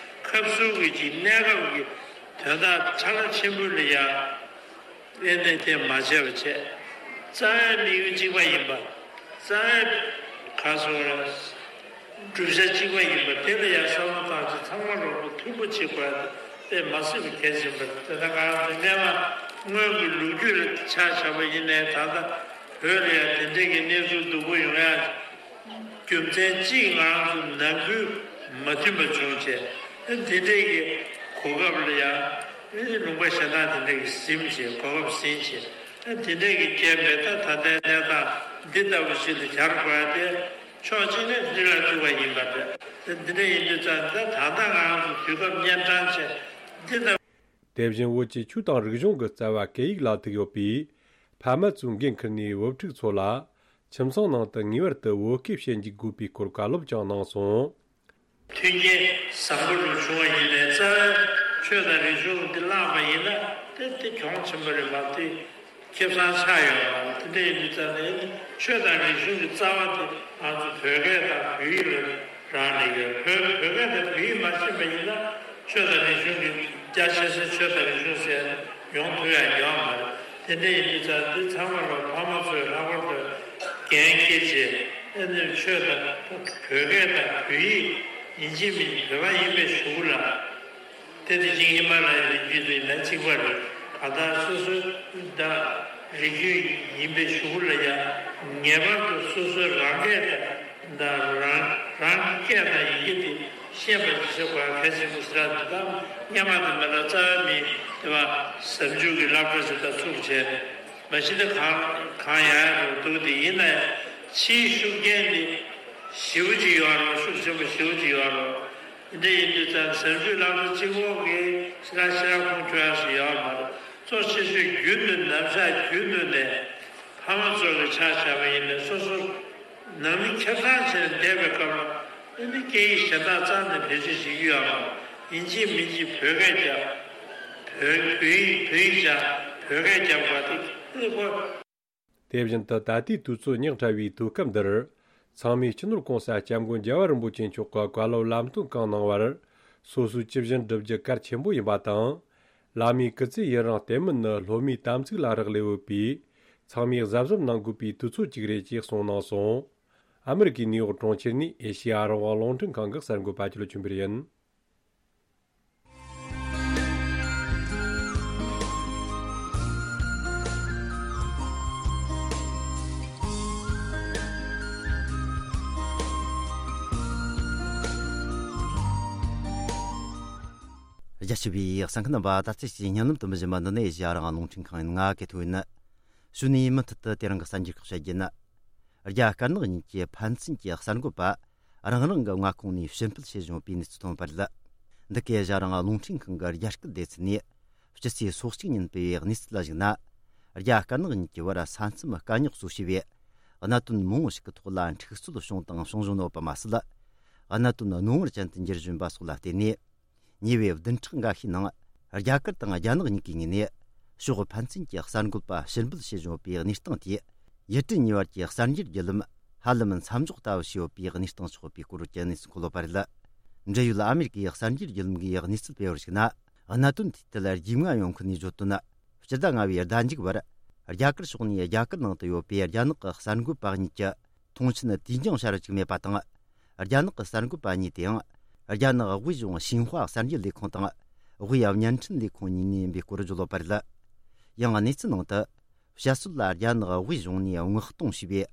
ཁབ་སུ་གི་ཅིག་གནས་སྐབས་ཀྱི་ དོན་དག་ཕྲ་རགས་ཆེན་པོ་ལ་ཡང་ཨེ་ནས་དེ་མ་བྱས་པ་བྱས། རྩ་བའི་དམིགས་ཡུལ་གཅིག་པ་ཡིན་པ། རྩ་བའི་ག་སོ་ར། བསྒྲུབ་བྱ་གཅིག་པ་ཡིན་པ་དེ་ལ་ཡང་བསམ་བློ་བཏང་ཚེ་ཚང་མ་རོགས་པ་མཐུན་པོ་བྱེད་དགོས་ཡ་དེ་མ་སྲིད་པ་གལ་ཆེན་པོ་རེད། དེ་ལྟར་ང་རང་ཚོ་སྔོན་མ་སྔོན་གྱི་ལོ་རྒྱུས་ལ་ཆ་བཞག་པ་ཡིན་ནའི་ད་ལྟ་བོད་ལ་ཡང་དེ་འདྲའི་གི་གནས་ཚུལ་སྡུག་པོ་ཡོང་ཡ་རྒྱུ་མཚན་གཅིག་ང་རང་ཚོ་ནང་ཁུལ་མ་མཐུན་པ་བྱུང་བྱས། དེ་འདྲའི་གི་གོ་སྐབས་ལ་ཡང་ལུང་པ་གཞན་དག་དེ་འདྲའི་གི་ཟིན་བྱས། གོ་སྐབས་ཟིན་བྱས། དེ་འདྲའི་གི་རྐྱེན་པས་ད་ད་ལྟའི་གནས་སྟངས་འདི་ལྟ་བུ་ཞིག་ལ་གྱར་དགོས་ཡ་དེ། ཕྱོགས་གཅིག་ནས་སྲིད་ལ་ཐུག་པ་ཡིན་པ་རེད། དེ་འདི་འདྲ་ཡིན་དུས་ཙང་ད་ད་ལྟ་ང་རང་ཚོ་དུས་སྐབས་གཉན་འཕྲང་ཆེ་འདི་ལྟ། དེ་བཞིན་བོད་ཀྱི་ཆོས་དང་རིག་གཞུང་གི་རྩ་བ་སྐད་ཡིག་ལ་ཐུག་ཡོད་པས། ཕ་མ་ཚོས་འགན་འཁུར་ནས་བུ་ཕྲུག་ཚོ་ལ་ཁྱིམ་ཚང་ནང་དུ་ངེས་པར་དུ་བོད་སྐད་བཤད་འཇུག་དགོས་པའི་སྐོར་བཀའ་སློབ་ཀྱང་གནང་སོང་། མཐུན་རྐྱེན་བཟང་པོ་ལོ་བྱུང་བ་ཡིན་ནའི་རྩ་བའི་ཆོས་དང་རིག་གཞུང་འདི་བརླག་པ་ཡིན་ན་དེ་དེ་གྱོང་ཆེན་པོ་རེད་མ་གཏོགས། ཁེ་བཟང་ཆགས་ཡོད་མ་རེད། དེ་འདྲ་ཡིན་དུས་ཙང་ནས་ཆོས་དང་རིག་གཞུང་གི་རྩ་བ་དེ་ང་ཚོ་བོད་སྐད་དང་བོད་ཡིག་ལ་རག་ལས་ཡོད། བོད་བོད་སྐད་དང་བོད་ཡིག་མ་ཤེས་པ་ཡིན་ན་ཆོས་དང་རིག་གཞུང་གི་རྒྱ་ཆེ་ས་ཆོས་དང་རིག་གཞུང་ཟེར་ཡོང་ཐུབ་ཡ་ཡོད་མ་རེད། དེ་འདྲ་ཡིན་དུས་ཙང་འདི་ཚང་མ་ལ་ཕ་མ་ཚོས་ལྷག་པར་དུ་འགན་འཁྱེར་བྱས། ཨ་ནི་ཆོས་དང་བོད་སྐད་དང་བོད་ཡིག་ཡིན་གཅིག་མིན་གཅིག་བོད་པ་ཡིན་པའི་གཞུག་ལ། དེ་དེ་བཞིན་ཧི་མ་ལ་ཡའི་རི་རྒྱུད་དུ་ཡིན་ན་གཅིག་པ་རེད། གང་ལྟར་སོ་སོའི་ད་རིགས་རྒྱུད་ཡིན་པའི་གཞུག་ལ་ཡང་ངེས་པར་དུ་སོ་སོའི་རང་སྐད་དང་ད་རང་རང་གི་སྐད་དང་ཡི་གེ་དེ་ཤེས་པ་ཞིག་བྱེད་དགོས་གལ་ཆེན་པོ་ཟེར་བ་འདི་དང་སྔོན་མ་དེ་མ་ལ་རྩ་བའི་མི་དེ་བ་ཟབ་འཇུག་གི་བསླབ་གྲྭ་ཞིག་ད་ཚུགས་བྱས། མ་གཞི་དེ་གང་གང་ཡང་ཡང་འདུག་དེ་ཡིན་ན་ཡང་ཕྱིའི་ཤུགས་རྐྱེན་དེ་ཞེ་པོ་ཅིག་ཡོད་རེད། ཤུགས་ཆེན་པོ་ཞེ་པོ་ཅིག་ཡོད་རེད། དེ་འདྲ་ཡིན་དུས་ཙང་ཟབ་འཇུག་བསླབ་གྲྭ་གཅིག་པོ་གིས་ཕྱི་ལ་ཕྱི་ལ་ཁུངས་འཁྱོལ་ཡག་ཞིག་ཡོད་མ་རེད། གཙོ་ཆེ་ཤོས་རྒྱུན་དུ་ནམ་ཞག་རྒྱུན་དུ་ནས་ཕ་མ་ཚོ་གི་ཆ་བཞག་པ་ཡིན་ནའི་སོ་སོ་ནང་མི་ཁེ་བཟང་བྱས་ནས་བསྡད་པའི་སྐབས་ལ་ཨ་ནི་སྐད་ཡིག་གཞན་དག་རྩ་ནས་བེད་སྤྱོད་བྱེད་རྒྱུ་ཡོད་མ་རེད། ཡིན་གཅིག་མིན་གཅིག་བོད་སྐད་རྒྱབ། བོད་བོད་ཡིག་བོད་ཡིག་སྦྱང་། བོད་སྐད་རྒྱབ་དགོས་དེ་ཨ་ནི་ཁོ། དེ་བཞིན་དུ་ད་ལྟའི་དུས་ཚོད་ཉག་ཕྲ་བའི་དུས་སྐབས་འདིར། ཚང་མས་སྤྱི་ནོར་༸གོང་ས་༸སྐྱབས་མགོན་རྒྱལ་བ་རིན་པོ་ཆེ་མཆོག་གི་བཀའ་སློབ་ལམ་སྟོན་གང་གནང་བར། སོ་སོའི་ཇི་བཞིན་བསྒྲུབ་རྒྱུ་གལ་ཆེན་པོ་ཡིན་པ་དང་། བླ་མའི་སྐུ་ཚེ་ཡུན་རིང་བརྟན་མིན་ནི་སློབ་མའི་དམ་ཚིག་ལ་རག་ལས་ཡོད་པས། ཚང་མས་གཟབ་གཟབ་གནང་དགོས་པའི་དུས་ཚོད་ཅིག་རེད་ཅེས་གསུངས་གནང་སོང་། ཨ་མི་རི་ཀའི་ནིའུ་ཡོག་གྲོང་ཁྱེར་ནས་ཨེ་ཤེ་ཡ་རང་དབང་རླུང་འཕྲིན་ཁང་གི་གསར་འགོད་པ་ཆོས་ལ་ཆོས་འཕེལ་ཡིན། རྒྱ་ཆེ་བའི་གསན་མཁན་རྣམ་པ། ད་ལྟ་ཅིག་བརྙན་ལམ་དུ་མི་བཞིན་པ་འདི་ནས་ཨེ་ཤེ་ཡ་རང་དབང་རླུང་འཕྲིན་ཁང་ཡིན། ང་གི་ཐུག་ཡིན། གཞུག་ནས་མུ་མཐུད་དུ་དེ་རིང་གི་གསར་འགྱུར་ཁག་བཤད་རྒྱུ་ཡིན། རྒྱ་དཀར་ནག་གཉིས་ཀྱི་ཕན་ཚུན་གྱི་གསར་འགོད་པ་རང་རང་གི་མངའ་ཁོངས་ནས་ཕྱིར་འབུད་བྱེད་བཞིན་པའི་གནས་ཚུལ་ཐོན་པ་རེད། འདི་གའི་ཨེ་ཤེ་ཡ་རང་དབང་རླུང་འཕྲིན་ཁང་གི་རྒྱ་སྐད་སྡེ་ཚན་ནས་སྤྱི་ཚེས་སོ་གཅིག་ཉིན་སྤེལ་བའི་གནས་ཚུལ་ལ་གཞིགས་ན། རྒྱ་དཀར་ནག་གཉིས་ཀྱི་བར་ས་མཚམས་དཀའ་རྙོག་གཙོ་བྱས་པའི་གནད་དོན་མང་པོ་ཞིག་གི་ཐོག་ལ་འཁྲུག་རྩོད་བྱུང་དང་བྱུང་བཞིན་ཡོད་པ་མ་ཟད། གནད་དོན་རྣོ་ངར་ཅན་དུ་འགྱུར་བཞིན་པ་སོགས་ལ་བརྟེན་ནས། ཉེ་བའི་བདུན་ཕྲག་འགའ་ཤས་ནང་རྒྱ་གར་དང་རྒྱ་ནག་གཉིས་ཀའི་ངོས་ནས་ཕྱོགས་ཕན་ཚུན་གྱི་གསར་འགོད་པ་ཕྱིར་འབུད་བྱེད་བཞིན་ཡོད་པའི་གནས་སྟངས་དེས། ཡུལ་གྲུ་གཉིས་བར་གྱི་གསར་འགྱུར་བརྒྱུད་ལམ་ཧ་ལམ་མཚམས་འཇོག་ལྟ་བུ་བྱས་ཡོད་པའི་གནས་སྟངས་ཆགས་པའི་སྐོར་གྱི་གནས་ཚུལ་འཁོད་ཡོད་པ་རེད། འབྲེལ་ཡོད་ཨ་མེ་རི་ཀའི་གསར་འགྱུར་བརྒྱུད་ལམ་གྱིས་གནས་ཚུལ་སྤེལ་བར་གཞིགས་ན། གནད་དོན་དེའི་ཐད་རྒྱུས་མངའ་ཡོད་མཁན་ནས་བརྗོད་དོན། སྤྱི་ཟླ་ལྔ་བའི་ཟླ་མཇུག་བར་རྒྱ་གར་ཕྱོགས་ནས་རྒྱ་གར་ནང་དུ་ཡོད་པའི་རྒྱ་ནག་གི་གསར་འགོད་པ་གཉིས་ཀྱི་མཐོང་མཆན་དུས་འགྱངས་བྱ་རུ་བཅུག་མེད་པ་དང་། རྒྱ་ནག་གི་གསར་འགོད་པ་གཉིས་དེའང་རྒྱ་ནག་དབུས་གཞུང་ཤིན་ཧྭ་གསར་འགྱུར་ལས་ཁུངས་དང་། དབུས་བརྙན་འཕྲིན་ལས་ཁུངས་གཉིས་ནས་ཡིན་པའི་སྐོར་བརྗོད་ཡོད་པ་རེད། ཡང་གནས་ཚུལ་ནང་དུ། བཤད་སྲོལ་ལ་རྒྱ་ནག་དབུས་གཞུང་ནས་མངགས་གཏོང་བྱས་པའི་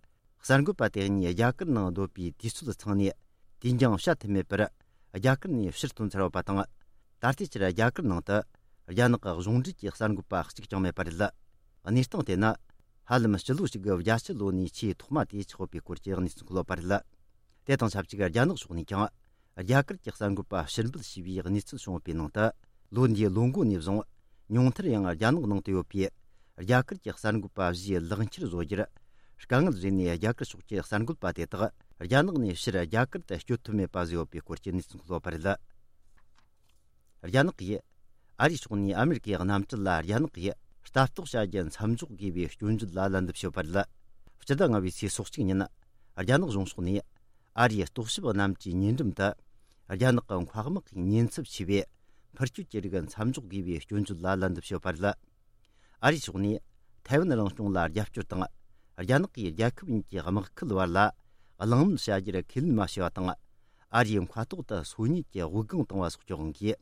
གསར་འགོད་པ་དེ་གཉིས་རྒྱ་གར་ནང་སྡོད་པའི་དུས་ཚོད་ཚང་ནས་དུས་འགྱངས་བྱ་ཐུབ་མེད་པར་རྒྱ་གར་ནས་ཕྱིར་ཐོན་ཚར་ཡོད་པ་དང་། ད་ལྟའི་ཆར་རྒྱ་གར་ནང་དུ་རྒྱ་ནག་གི་གཞུང་འབྲེལ་གྱི་གསར་འགོད་པ་གཅིག་ཀྱང་མེད་པ་རེད། གནས་སྟངས་དེ་ནི་ཧ་ལམ་སྤྱི་ལོ་གཅིག་གི་རྒྱ་ཆེ་ལོ་ནས་ཆེས་ཐོག་མ་དེ་ཆགས་ཡོད་པའི་སྐོར་གྱི་གནས་ཚུལ་འཁོད་ཡོད་པ་རེད། དེ་དང་ཆབས་ཅིག་རྒྱ་ནག་ཕྱོགས་ནས་ཀྱང་། རྒྱ་གར་གྱི་གསར་འགོད་པ་ཕྱིར་འབུད་བྱས་པའི་གནས་ཚུལ་བྱུང་བའི་ནང་དུ། ལོ་འདིའི་ལོ་འགོ་ནས་བཟུང་། ཉུང་མཐར་ཡང་རྒྱ་ནག་ནང་དུ་ཡོད་པའི་རྒྱ་གར་གྱི་གསར་འགོད་པ་བཞིའི་ལག་འཁྱེར་བཟོ་རྒྱུར་དཀའ་ངལ་བཟོས་ནས། རྒྱ་གར་ཕྱོགས་ཀྱི་གསར་འགོད་པ་དེ་དག་རྒྱ་ནག་ནས་ཕྱིར་རྒྱ་གར་དུ་སྐྱོད་ཐུབ་མེད་པ་བཟོས་ཡོད་པའི་སྐོར་གྱི་གནས་ཚུལ་འཁོད་ཡོད་པ་རེད། རྒྱ་ནག་གིས་ཨ་རིའི་ཕྱོགས་ནས་ཨ་མེ་རི་ཀའི་གནམ་གྲུ་ལ་རྒྱ་ནག་གིས་ལྟ་རྟོག་བྱ་རྒྱུ་མཚམས་འཇོག་དགོས་པའི་སྐྱོན་བརྗོད་ལ་ལན་འདེབས་བྱས་ཡོད་པ་རེད། སྤྱི་ཟླ་ལྔ་བའི་ཚེས་སོ་གཅིག་ཉིན། རྒྱ་ནག་གཞུང་ཕྱོགས་ནས་ཨ་རིའི་རྟོག་ཞིབ་གནམ་གྲུའི་ཉེ་འགྲམ་དུ། རྒྱ་ནག་གི་མཁའ་དམག་གི་ཉེན་ཚབས་ཆེ་བའི་ འཕུར་སྐྱོད་ཀྱི་རིགས་མཚམས་འཇོག་དགོས་པའི་སྐྱོན་བརྗོད་ལ་ལན་འདེབས་ཞུས་པ་རེད། ཨ་རིའི་ཕྱོགས་ནས་ཐའེ་ཝན་རང་སྐྱོང་ལ་རྒྱབ་སྐྱོར་དང་། རྒྱ་ནག་གིས་རྒྱལ་ཁབ་གཉིས་ཀྱི་དམག་ཁུལ་བར་ལ་གླེང་མོལ་བྱ་རྒྱུར་ཁས་ལེན་མ་བྱས་པ་དང་། ཨ་རིའི་མཁའ་ཐོག་ཏུ་སོ་ཉུལ་གྱི་དབུགས་ལྒང་བཏང་བ་སོགས་ཀྱི་དབང་གིས།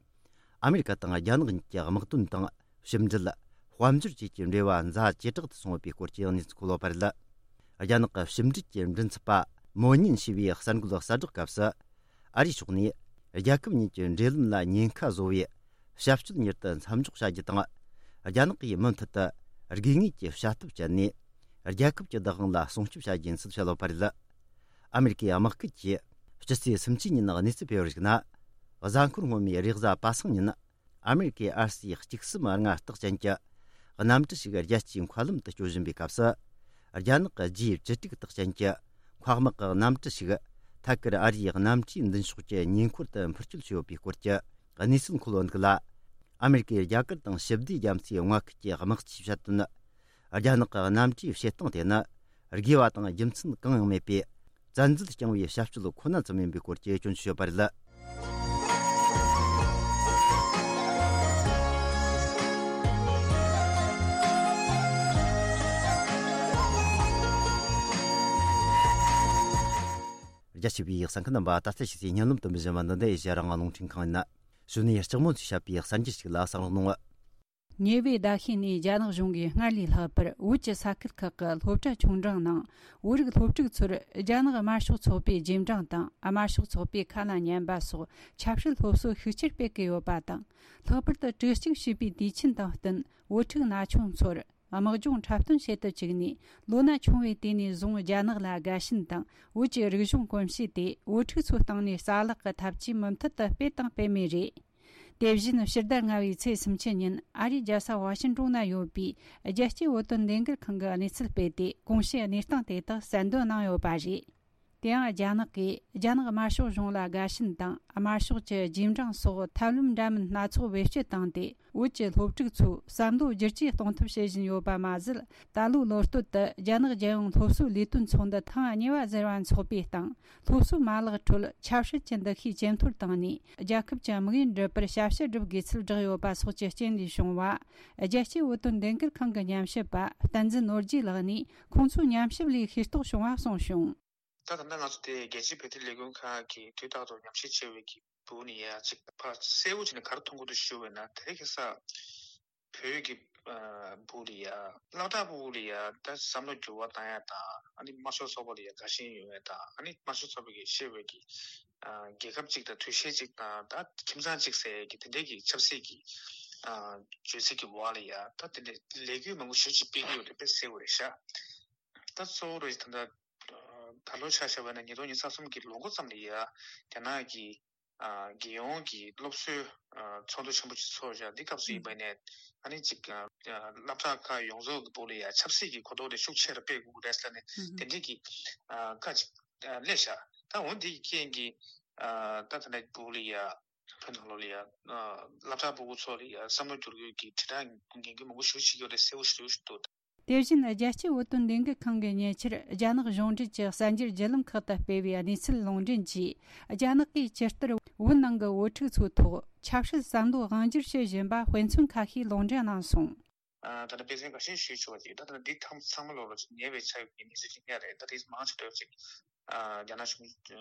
ཨ་མེ་རི་ཀ་དང་རྒྱ་ནག་གཉིས་ཀྱི་དམག་དོན་དང་ཕྱི་འབྲེལ། དཔལ་འབྱོར་བཅས་ཀྱི་འབྲེལ་བ་འཛའ་ཇེ་དྲག་ཏུ་སོང་ཡོད་པའི་སྐོར་གྱི་གནས་ཚུལ་འཁོད་ཡོད་པ་རེད། རྒྱ་ནག་གི་ཕྱི་འབྲེལ་གྱི་མགྲིན་ཚབ་པ་མོ་ཉིན་ཞུས་པའི་གསར་འགོད་གསལ་བསྒྲགས་སྐབས་སུ། ཨ་རིའི་ཕྱོགས་ནས་རྒྱལ་ཁབ་གཉིས་ཀྱི་འབྲེལ་ལམ་ལ་ཉེན་ཁ་བཟོ་བའི་བྱ་སྤྱོད་མྱུར་དུ་མཚམས་འཇོག་བྱ་རྒྱུ་དང་། རྒྱ་ནག་གིས་མུ་མཐུད་དུ་དགོས་ངེས་ཀྱི་བྱ་ཐབས་སྤྱད་ནས། རྒྱལ་ཁབ་ཀྱི་བདག་དབང་ལ་སྲུང་སྐྱོབ་བྱ་རྒྱུ་ཡིན་ཚུལ་བཤད་ཡོད་པ་རེད། ཨ་མེ་རི་ཀའི་དམག་ཁུལ་གྱིས་སྤྱི་ཚེས་སུམ་ཅུ་ཉིན་གནས་ཚུལ་སྤེལ་བར་གཞིགས་ན། གཟའ་འཁོར་སྔོན་མའི་རེས་གཟའ་པ་སངས་ཉིན། ཨ་མེ་རི་ཀའི་ཨར་སི་གཅིག་གསུམ་ལྔ་རྟགས་ཅན་གྱི་གནམ་གྲུ་ཞིག་རྒྱལ་སྤྱིའི་མཁའ་ལམ་དུ་སྐྱོད་བཞིན་པའི་སྐབས་སུ། རྒྱ་ནག་གི་ཇི་བཅུ་དྲུག་རྟགས་ཅན་གྱི་མཁའ་དམག་གི་གནམ་གྲུ་ཞིག་ཐད་ཀར་ཨ་རིའི་གནམ་གྲུའི་མདུན་ཕྱོགས་ཀྱི་ཉེ་འཁོར་དུ་འཕུར་སྐྱོད་བྱས་ཡོད་པའི་སྐོར་གྱི་གནས་ཚུལ་འཁོད་ཡོད་འདུག་ལ། ཨ་མེ་རི་ཀའི་རྒྱ་གར་དང་ཞི་བདེ་རྒྱ་མཚོའི་མངའ་ཁུལ་གྱི་དམག་སྤྱིས་བཤད་དོན། རྒྱ་ནག་གི་གནམ་གྲུའི་བྱེད་སྟངས་དེ་ནི་དགོས་པ་དང་རྒྱུ་མཚན་གང་ཡང་མེད་པའི་བཙན་འཛུལ་བསྐྱངས་པའི་བྱ་སྤྱོད་ཁོ་ན་ཙམ་ཡིན་པའི་སྐོར་གྱི་སྐྱོན་བརྗོད་ཡོད་པ་རེད། རྒྱ་ཆེ་བའི་གསན་མཁན་རྣམ་པ། ད་ལྟ་ཕྱི་ཚེས་ཉིན་ལམ་དུ་འབུལ་བཞིན་པ་འདི་ནི་ཨེ་ཤ་ཡ་རང་དབང་རླུང་འཕྲིན་ཁང་ཡིན། གཞུག་ནས་ལྕགས་མོ་ཚོས་བཤད་པའི་གསར་འགྱུར་ཞིག་ལ་གསན་རོགས་གནང་། ཉེ་བའི་ཟླ་ཤས་ནས་རྒྱ་ནག་གཞུང་གིས་སྔར་ལས་ལྷག་པར་བོད་ཀྱི་ས་ཁུལ་ཁག་གི་སློབ་གྲྭ་ཆུང་འབྲིང་ནང་བོད་རིགས་སློབ་ཕྲུག་ཚོར་རྒྱ་ནག་དམར་ཤོག་ཚོགས་པའི་རྗེས་འབྲང་དང་། དམར་ཤོག་ཚོགས་པའི་ཁ་ལ་ཉན་པ་སོགས་ཆབ་སྲིད་སློབ་གསོ་ཤུགས་ཆེར་སྤེལ་གྱི་ཡོད་པ་དང་། ལྷག་པར་དུ་དྲི་གཅིག་ཞུས་པའི་དུས་ཆེན་དང་བསྟུན། བོད་ཕྲུག་ན་ཆུང་ཚོར་དམག་སྦྱོང་འཁྲབ་སྟོན་བྱེད་དུ་བཅུག་ནས། ལོ་ན་ཆུང་བའི་དུས་ནས་བཟུང་རྒྱ་ནག་ལ་དགའ་ཞེན་དང་། བོད་ཀྱི་རིག་གཞུང་གོམས་གཤིས་དེ་བོད་ཕྲུག་ཚོའི་སྟེང་ནས་རྩ་བརླག་གི་ཐབས་ཇུས་མུ་མཐུད་དུ་སྤེལ་དང་སྤེལ་མུས་རེད། དེ་བཞིན་ཕྱི་ཟླ་ལྔ་བའི་ཚེས་སུམ་ཅུ་ཉིན་ཨ་རིའི་རྒྱལ་ས་ཝ་ཤིན་ཀྲུང་ན་ཡོད་པའི་རྒྱལ་སྤྱིའི་བོད་དོན་ལས་འགུལ་ཁང་གིས་གནས་ཚུལ་སྤེལ་ཏེ། གོང་ཞུས་གནས་སྟངས་དེ་དག་གསལ་འདོན་གནང་ཡོད་པ་རེད། དེ་ཡང་རྒྱ་ནག་གིས་རྒྱ་ནག་དམར་ཤོག་གཞུང་ལ་དགའ་ཞེན་དང་། དམར་ཤོག་གི་རྗེས་འབྲང་སོགས་ཐབས་ལམ་འདྲ་མིན་སྣ་ཚོགས་བེད་སྤྱོད་བཏང་སྟེ། བོད་ཀྱི་སློབ་ཕྲུག་ཚོའི་བསམ་བློ་བསྒྱུར་བཅོས་གཏོང་ཐབས་བྱེད་བཞིན་ཡོད་པ་མ་ཟད། ད་ལོའི་ལོ་སྟོད་དུ་རྒྱ་ནག་རྒྱལ་ཡོངས་སློབ་གསོའི་ལས་དོན་ཚོགས་འདུ་ཐེངས་གཉིས་པ་ཟེར་བ་འཚོགས་པའི་སྟེང་། སློབ་གསོའི་མ་ལག་ཁྲོད་ཆབ་སྲིད་ཀྱི་འདུ་ཤེས་ཇེ་མཐོར་བཏང་ནས། རྒྱལ་ཁབ་ཀྱི་དམིགས་ཡུལ་འགྲུབ་པར་ཞབས་ཞུ་བསྒྲུབ་དགོས་ཚུལ་བསྒྲགས་ཡོད་པ་སོགས་ཀྱི་རྐྱེན་ལས་བྱུང་བ། རྒྱལ་སྤྱིའི་བོད་དོན་ལས་འགུལ་ཁང་གི་ཉམས་ཞིབ་པ་བསྟན་འཛིན་ནོར་རྒྱས་ལགས་ནས། ཁོང་ཚོའི་ཉམས་ཞིབ་ལས་ཤེས་རྟོགས་བྱུང་བ་གསུངས་བྱུང་། ད་ད་ལྟ་ང་ཚོ་དེ་རྒྱལ་སྤྱིའི་བོད་དོན་ལས་འགུལ་ཁང་གིས་དུས་རྟག་ཏུ་ཉམས་ཞིབ་བྱེད་པའི་གི་སྦུག་ནས་ཡ་གཅིག་ཕར་གསལ་བོ་བྱས་ནས་ག་རེ་མཐོང་གི་འདུག་ཞུ་བས་ན། དེ་རིང་ཁ་སང་བོད་ཀྱི་ཨ་སྦུག་ལ་ཡ་སློབ་གྲྭ་སྦུག་ལ་ཡ་ད་བསམ་བློ་འགྱུར་བ་བཏང་ཡ་དང་། ཨ་ནི་དམར་ཤོག་ཚོགས་པ་ལ་ཡ་དགའ་ཞེན་ཡོད་ཡ་དང་། ཨ་ནི་དམར་ཤོག་ཚོགས་པ་གིས་བཤད་པའི་གི་ཨ་རྒྱལ་ཁབ་གཅིག་དང་དུས་ཆེན་གཅིག་དང་ད་ཁྱིམ་ཚང་གཅིག་ཟེར་ཡ་གི་དེ་འདྲའི་གི་ཆབ་སྲིད་ཀྱི་ཨ་བརྗོད་ཚིག་གི་འོག་ལ་ཡ་ད་དེ་འདྲའི་ལས་འགུལ་མང་པོ་ཞེ་ཅིག་སྤེལ་གི་ཡོད་རེད་པས་གསལ་བོ་རེད་ཤག་ད་གཙོ་བོ་རེད་ད་ལྟ། ད་ལོ་ཆ་བཞག་པ་ན་ཉིས་སྟོང་ཉི་ཤུ་རྩ་གསུམ་གྱི་ལོ་འགོ་ཙམ་ལ་ཡ་རྒྱ་ནག་གི་ཨ་རྒྱལ་ཡོངས་ཀྱི་སློབ་གསོའི་ཨ་ཚོགས་འདུ་ཆེན་པོ་ཅིག་ཚོགས་བཞག་འདི་སྐབས་སུ་ཡིན་པ་ནས། ཨ་ནི་ཅིག་ཨ་སློབ་གྲྭ་ཁག་ཡོངས་རྫོགས་ཀྱི་སྦུག་ལ་ཡ་ཆབ་སྲིད་ཀྱི་གོ་རྟོགས་དེ་ཤུགས་ཆེ་རུ་སྤེལ་དགོས་ཀྱི་རེད་ཟེར་ནས་དེ་འདྲའི་གི་ཨ་བཀའ་ཅིག་ཨ་སླེབས་ཤག་ད་འོ་འདི་གི་རྐྱེན་གྱིས་ཨ་ད་ད་ལྟ་སྦུག་ལ་ཡ་བོད་ནང་ལོགས་ལ་ཡ་ཨ་སློབ་གྲྭ་ཕྲུ་གུ་ཚོ་ལ་ཡ་བསམ་བློ་བསྒྱུར་དགོས་ཀྱི་དྲིལ་བསྒྲགས་ངན་གྱི་མང་པོ་ཞེ་པོ་ཅིག་ཡོད་རེད་གསལ་པོ་ཞེ་པོ་ཞིག་འདུག་དེ་བཞིན་རྒྱལ་སྤྱིའི་བོད་དོན་ལས་འགུལ་ཁང་གིས་ཉེ་ཆར་རྒྱ་ནག་གཞུང་འབྲེལ་གྱི་གསར་འགྱུར་བརྒྱུད་ལམ་ཁག་ཏུ་སྤེལ་བའི་གནས་ཚུལ་ལུང་འདྲེན་གྱིས། རྒྱ་ནག་གིས་ཇི་ལྟར་བོད་ནང་གི་བོད་ཕྲུག་ཚོའི་ཐོག་ཆབ་སྲིད་བསམ་བློ་དབང་སྒྱུར་བྱེད་བཞིན་པ་དཔེ་མཚོན་ཁ་ཤས་ལུང་འདྲེན་གནང་སོང་། ཨ་ད་ལྟ་དཔེ་མཚོན་འགའ་ཤས་ཞུས་ཆོག་པ་ཅིག་ད་ལྟ་འདི་ཐམས་ཚང་མ་ལོག་ལ་ཅིག་ཉེ་བའི་ཆར་གྱི་གནས་ཚུལ་ཅིག་ཉག་རེད། ད་དེ་མང་ཆེ་འདྲ་ཅིག་ཨ་རྒྱ་ནག་གཞུང་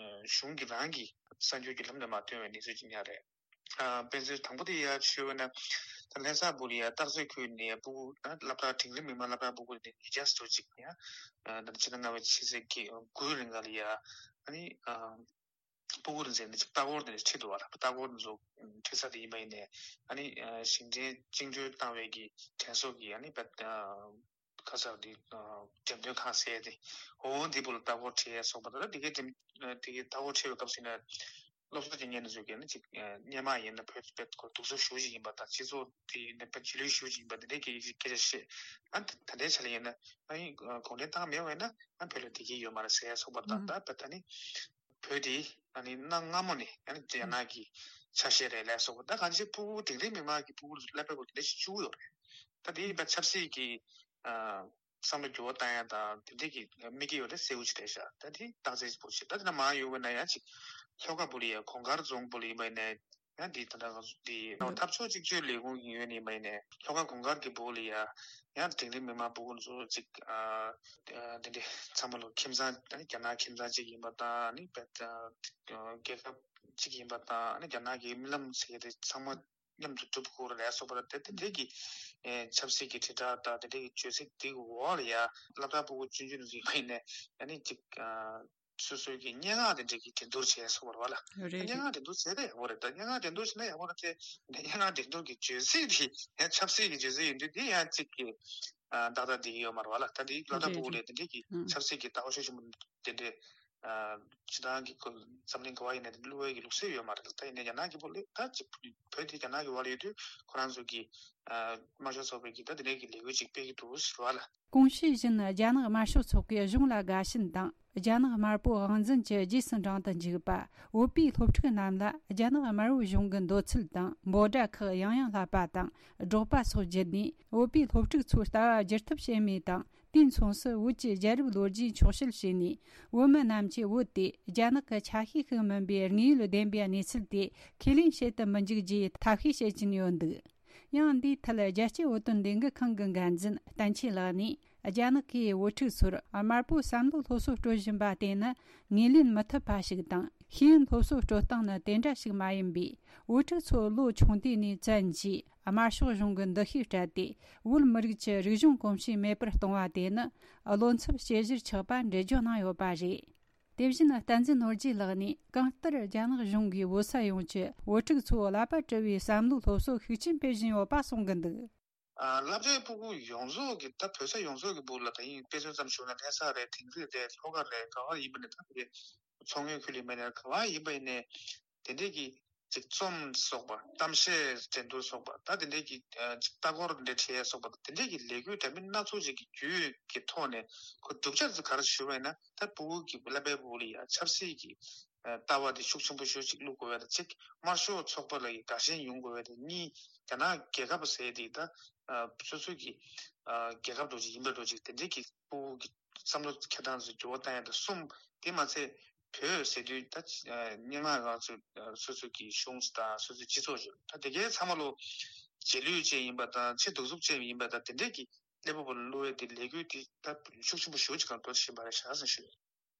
གཞུང་གིས་རང་གི་གསར་འགྱུར་བརྒྱུད་ལམ་ནས་མར་བཏོན་པའི་གནས་ཚུལ་ཅིག་ཉག་རེད། ཨ་དཔེ་མཚོན་དང་པོ་དེ་ཡ་ཞུས་པ་ན། ད་ལྷ་ས་སྦུག་ལ་ཡ་སྟག་རྩེ་ཁུལ་ནས་སྤུ་གུ་ཨ་སློབ་གྲྭ་འབྲིང་རིམ་མི་དམངས་སློབ་གྲྭ་སྤུ་གུ་ནས་ཉིས་བརྒྱ་ཙམ་ཅིག་ཡ་ཨ་ད་ཕྱི་ཟླ་ལྔ་པའི་ཕྱི་ཚེས་དགུ་རིང་ག་ལ་ཡ་ཨ་ནི་ཨ་སྤུ་གུ་རེ་ཟེར་ནས་ཅིག་ལྟ་སྐོར་དེ་ཁྲིད་འདུག་བ། ལྟ་སྐོར་དེ་ཚོ་ཁྲིད་ས་དེ་ཡིན་པ་ཡིན་ནས། ཨ་ནི་ཨ་ཞིང་ཆེན་བཅིངས་འགྲོལ་བཏང་བའི་གི་དྲན་གསོ་གི་ཨ་ནི་བ་ཨ་ཁ་སང་དེ་ཨ་འགྲེམས་སྟོན་ཁང་ཟེར་དེ་འོ་འདི་པོ་ལ་ལྟ་སྐོར་ཁྲིད་ཡས་སོགས་པ་དང་། དེ་གའི་འགྲེམས་དེ་གའི་ལྟ་སྐོར་ཁྲིད་པའི་སྐབས་སུ་ཡིན་ན་སློབ་གསོ་སྤྱི་གཉེར་ཚོས་ཀྱིས་ནི་ཅིག་ཨ་སྔོན་མ་ཡིན་ན་བོད་བོད་ཁོ་སྡུག་ས་ཞེ་པོ་ཅིག་ཡིན་པ་དང་། སྤྱི་ཚོགས་དེ་ཡིན་ན་བོད་རྗེས་ལུས་ཞེ་པོ་ཅིག་ཡིན་པ་དེ་འདྲའི་སྐད་ཆ་སྐད་ཆ་བཤད། ཨ་ད་ད་ལྟའི་ཆ་ལ་ཡིན་ན་ཨ་ནི་གུང་ཁྲན་ཏང་མེད་པ་ཡིན་ན་ཨ་བོད་ལ་བདེ་སྐྱིད་ཡོད་མ་རེད་ཟེར་ཡས་སོགས་པ་དང་། ད་བོད་ད་ནི་བོད་དེ་ཨ་ནི་གནའ་སྔ་མོ་ནས་ཨ་ནི་རྒྱ་ནག་གི་ཆ་ཤས་རེད་ལབ་སོགས་པ། ད་གང་ཅི་སྤུ་གུ་འབྲིང་རིམ་མི་དམངས་ཀྱི་སྤུ་གུ་ཚོ་ཀླད་པའི་སྐོར་དེ་འདྲ་ཞིག་བཅུག་ཡོད་རེད། ད་དེ་ཡིན་པ་ཆབ་སྲིད་ཀྱི་ཨ་བསམ་བློ་འགྱུར་བ་བཏང་ཡ་དང་དེ་འདྲས་ཀྱི་དམིགས་ཀྱི་ཡོད་རེད་གསལ་བོ་ཅིག་རེད་ཤག་ད་དེ་རྟགས་གསལ་ཅིག་པོ་ཞིག་ད་དེ་ན་མ་ཡོང་བས་ན་ཡང་ཅིག་ལྷོ་ཁ་སྦུག་ལ་ཡ་གོང་དཀར་རྫོང་སྦུག་ལ་ཡིན་པ་ཡིན་ནའི་ ཡང་འདི་ད་ལྟ་ང་ཚོ་འདི་འཐབ་ཕྱོགས་གཅིག་གྱུར་ལས་ཁུངས་ཀྱི་ངོས་ནས་མ་ཡིན་ནས་ལྷོ་ཁ་གུང་དཀར་གྱི་སྦུག་ལ་ཡ་ཡང་འབྲིང་རིམ་མི་མང་སྤུ་གུ་ཚོ་གཅིག་ཨ་ཨ་འདི་འདྲའི་ཚང་མ་ལོ་ཁྱིམ་ཚང་ཨ་ནི་རྒྱ་ནག་ཁྱིམ་ཚང་གཅིག་ཡིན་པ་དང་ཨ་ནི་བེད་ཨ་རྒྱལ་ཁབ་གཅིག་ཡིན་པ་དང་ཨ་ནི་རྒྱ་ནག་གི་རྨི་ལམ་ཟེར་གྱི་དེ་ཚང་མ་མཉམ་དུ་སྒྲུབ་དགོས་རེད་སོགས་པ་དེ་དེ་འདྲའི་གི་ཨེ་ཆབ་སྲིད་ཀྱི་དྲིལ་བསྒྲགས་དང་དེ་འདྲའི་གི་བརྗོད་ཚིག་དེ་གི་འོག་ལ་ཡ་སློབ་གྲྭ་སྤུ་གུ་ཆུང་ཆུང་ཚོ་ཡིན་པ་ཡིན་ནས་ཨ་ནི་གཅིག་ཨ། སོ་སོའི་གི་སྙན་ངག་དེ་འདྲ་གི་འགྲན་བསྡུར་བྱས་སོང་བ་རེད་བ་ལ། རེད་རེད། སྙན་ངག་འགྲན་བསྡུར་བྱས་ཏེ་ཡག་པོ་རེད་ད། སྙན་ངག་འགྲན་བསྡུར་བྱས་ན་ཡག་པོ་རེད་དེ། སྙན་ངག་འགྲན་བསྡུར་གྱི་བརྗོད་ཚིག་དེ་ཡང་ཆབ་སྲིད་ཀྱི་བརྗོད་ཚིག་ཡིན་དུས་དེ་ཡང་གཅིག་གི་ཨ་ཏག་ཏག་བསྡད་ཀྱི་ཡོད་མ་རེད་བ་ལ། ད་དེ་སློབ་གྲྭ་རེད་སྤུ་གུ་རེད། ལས་དེ་འདྲ་གི་ཨང་ཆབ་སྲིད་ཀྱི་ལྟ་བ་ཤུགས་ཆེན་པོ་དེ་འདྲས་ཨ་སྤྱི་བཏང་གི་ཁོ་འཛམ་གླིང་ག་བ་ཡིན་ན་དེ་བསླུ་བའི་གི་ལུགས་སྲོལ་ཡོད་མ་རེད། ད་ཡིན་ནའི་རྒྱ་ནག་གི་སྤུ་གུ་ལས་ད་གཅིག་བོད་དེ་རྒྱ་ནག་གི་བར་ལ་ཡོད་དུས་ཁོ་རང་ཚོ་གི་ཨ་དམར་ཤོག་ཚོགས་པའི་གི་ད་དེ་འདྲའི་གི་ལས་འགུལ་ཅིག་སྤེལ་གྱི་འདུག་ཟེར་བ་ལ། གོང་ཞུས་བཞིན་རྒྱ་ནག་དམར་ཤོག་ཚོགས་པས་གཞུང་ལ་དགའ་ཞེན་དང་རྒྱ་ནག་དམར་པོ་དབང་འཛིན་གྱི་རྗེས་སུ་འབྲང་དུ་འཇུག་པ། བོད་པའི་སློབ་ཕྲུག་རྣམས་ལ་རྒྱ་ནག་དམར་པོའི་གཞུང་གི་འདོད་ཚུལ་དང་འབོད་སྒྲ་ཁག་ཡང་ཡང་བསླབ་པ་དང་སྒྲོག་པ་སོགས་བརྒྱུད་ནས་བོད་པའི་སློབ་ཕྲུག་ཚོའི་ལྟ་བ་བསྒྱུར་ཐབས་བྱེད་མུས་དང་། དུས་མཚུངས་སུ་བོད་ཀྱི་རྒྱལ་རབས་ལོ་རྒྱུས་འཁྱོག་བཤད་བྱས་ནས་བོད་མི་རྣམས་ཀྱིས་བོད་དེ་རྒྱ་ནག་གི་ཆ་ཤས་ཤིག་མིན་པའི་དངོས་ཡོད་བདེན་པའི་གནས་ཚུལ་དེ་ཁས་ལེན་བྱེད་དུ་མི་འཇུག་ཅེས་ཐབས་ཤེས་བྱེད་ཀྱིན་ཡོད་འདུག་ཡང་འདིའི་ཐད་རྒྱལ་སྤྱིའི་བོད་དོན་ལས་འགུལ་ཁང་གི་འགན་འཛིན་བསྟན་ཆོས་ལགས་ནས། རྒྱ་ནག་གིས་བོད་ཕྲུག་ཚོར་དམར་པོའི་བསམ་བློའི་སློབ་གསོ་སྤྲོད་བཞིན་པ་དེ་ནི་ངོས་ལེན་མི་ཐུབ་པ་ཞིག་དང་། ཤེས་ཡོན་སློབ་གསོ་སྤྲོད་སྟངས་ནི་དེ་འདྲ་ཞིག་མ་ཡིན་པས། བོད་ཕྲུག་ཚོ་ལོ་ཆུང་དུས་ནས་བཙན་གྱིས་དམར་ཤོག་གཞུང་གི་འདུ་ཤེས་སྤྲད་དེ། བོད་མི་རིགས་ཀྱི་རིག་གཞུང་གོམས་གཤིས་མེད་པར་གཏོང་བ་དེ་ནི་བློ་འཚབ་བྱེད་གཞིར་ཆགས་པ་འགྲེལ་བརྗོད་གནང་ཡོད་པ་རེད། དེ་བཞིན་བསྟན་འཛིན་ནོར་རྒྱས་ལགས་ནས། གང་ལྟར་རྒྱ་ནག་གཞུང་གིས་བོད་ས་ཡོངས་ཀྱི་བོད་ཕྲུག་ཚོའི་ཀླད་པ་བཀྲུ་བའི་བསམ་བློའི་སློབ་གསོ་ཤུགས་ཆེན་སྤེལ་བཞིན་ཡོད་པ་གསུང་གི་འདུག་ཨ། སློབ་གྲྭའི་སྤུ་གུ་ཡོངས་རྫོགས་ཀྱི་ད་བོད་ས་ཡོངས་རྫོགས་ཀྱི་སྦུག་ལ་ད་ཡིན་དཔེ་མཚོན་ཙམ་ཞུས་ན་ལྷ་ས་རེད། དིང་རི་རེད། ལྷོ་ཁ་རེད། ག་བ་ཡིན་པ་ནས་ད་དེ་མཚོ་སྔོན་ཁུལ་ལ་ཡིན་པ་ནས་ག་བ་ཡིན་པ་ཡིན་ནས་དེ་འདྲས་ཀྱི་ཅིག་རྩོམ་སོགས་པ། གཏམ་བཤད་འགྲན་བསྡུར་སོགས་པ། ད་དེ་འདྲས་ཀྱི་ཨ་ཅིག་ལྟ་སྐོར་འདྲ་བྱས་སོགས་པ། དེ་འདྲས་ཀྱི་ལས་འགུལ་འདྲ་མིན་སྣ་ཚོགས་ཅིག་གི་བརྒྱུད་ཀྱི་ཐོག་ནས་ཁོ་བསྒྲུབ་བྱ་ཚོ་ག་རེ་ཞུ་བ་ཡིན་ན། ད་སྤུ་གུ་གི་ཀླད་པའི་སྦུག་ལ་ཡ་ཆབ་སྲིད་ཀྱི་ཨ་ལྟ་བ་དེ་ཤུགས་ཆེན་པོ་ཞེ་ཅིག་བླུག་དགོས་པ་དང་གཅིག་དམར་ཤོག་ཚོགས་པ་ལ་ཡི་དགའ་ཞེན་ཡོང་དགོས་པ་དང་གཉིས། རྒྱ་ནག་རྒྱལ་ཁབ་ཟེར་དེ་ད་ཨ་སོ་སོ་གི་ཨ་རྒྱལ་ཁབ་འདྲ་ཅིག་ཡིན་པ་འདྲ་ཅིག་དེ་འདྲའི་གི་སྤུ་གུ་གི་བསམ་བློ་འཁྱེར་སྟངས་སུ་འགྱུར་བ་བཏང་ཡ་དང་གསུམ། དེ་མ་ཚད་བོད་ཟེར་དུས་ད་ཨ་སྙན་ངག་ང་ཚོ་ཨ་སོ་སོ་གི་གཞུང་དང་སོ་སོའི་སྤྱི་ཚོགས་ཅིག་ད་དེ་གའི་ཚང་མ་ལོ་རྗེས་ལུས་ཅན་ཡིན་པ་དང་ཕྱི་གདུག་རྩུབ་ཅན་ཡིན་པ་དང་དེ་འདྲའི་གི་ཀླད་པ་བོར་བླུ་བའི་དེ་ལས་འགུལ་དེ་ད་ཤུགས་ཆེན་པོ་ཞེ་ཅིག་གང་འགྲོ་བཞིན་པ་རེད་ཤག་ཟེར་ཞུ།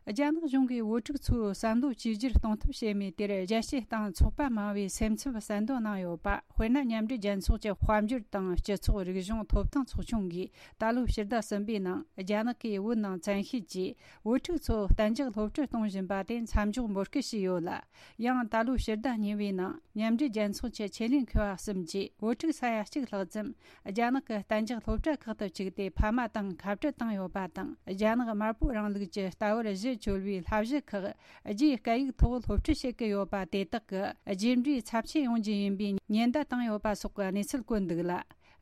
རྒྱ་ནག་གཞུང་གིས་བོད་ཕྲུག་ཚོའི་བསམ་བློ་བཅོས་བསྒྱུར་གཏོང་ཐབས་བྱེད་མུས་དེར་རྒྱལ་སྤྱིའི་སྟེང་ཚོགས་པ་མང་བས་སེམས་འཚབ་གསལ་འདོན་གནང་ཡོད་པ། དཔེར་ན། མཉམ་འབྲེལ་རྒྱལ་ཚོགས་ཀྱི་དཔལ་འབྱོར་དང་སྤྱི་ཚོགས་རིག་གཞུང་ཐོབ་ཐང་ཚོགས་ཆུང་གིས་ད་ལོའི་ཕྱི་ཟླ་གསུམ་པའི་ནང་རྒྱ་ནག་གིས་བོད་ནང་བཙན་ཤེད་ཀྱིས་བོད་ཕྲུག་ཚོ་གཏན་འཇགས་སློབ་ཁྲིད་གཏོང་བཞིན་པ་དེ་མཚམས་འཇོག་འབོད་སྐུལ་བྱས་ཡོད་ལ། ཡང་ད་ལོའི་ཕྱི་ཟླ་གཉིས་པའི་ནང་མཉམ་འབྲེལ་རྒྱལ་ཚོགས་ཀྱི་ཆེད་ལས་མཁས་པ་གསུམ་གྱིས་བོད་ཕྲུག་ས་ཡ་གཅིག་ལྷག་ཙམ་རྒྱ་ནག་གི་གཏན་འཇགས་སློབ་གྲྭ་ཁག་ཏུ་བཅུག་སྟེ་ཕ་མ་དང་ཁ་བྲལ་བཏང་ཡོད་པ་དང་། རྒྱ་ནག་དམར་པོའི་རིང་ལུགས་ཀྱི་ལྟ་བར་གཞི་བཅོལ་བའི་བསླབ་གཞི་ཁག་རྒྱའི་སྐད་ཡིག་ཐོག་སློབ་ཁྲིད་བྱེད་ཀྱི་ཡོད་པ་དེ་དག་གི་རྗེས་འབྲས་ཚབས་ཆེན་ཡོང་རྒྱུ་ཡིན་པའི་ཉེན་བརྡ་བཏང་ཡོད་པ་སོགས་ཀྱི་གནས་ཚུལ་བཀོད་འདུག་ལ།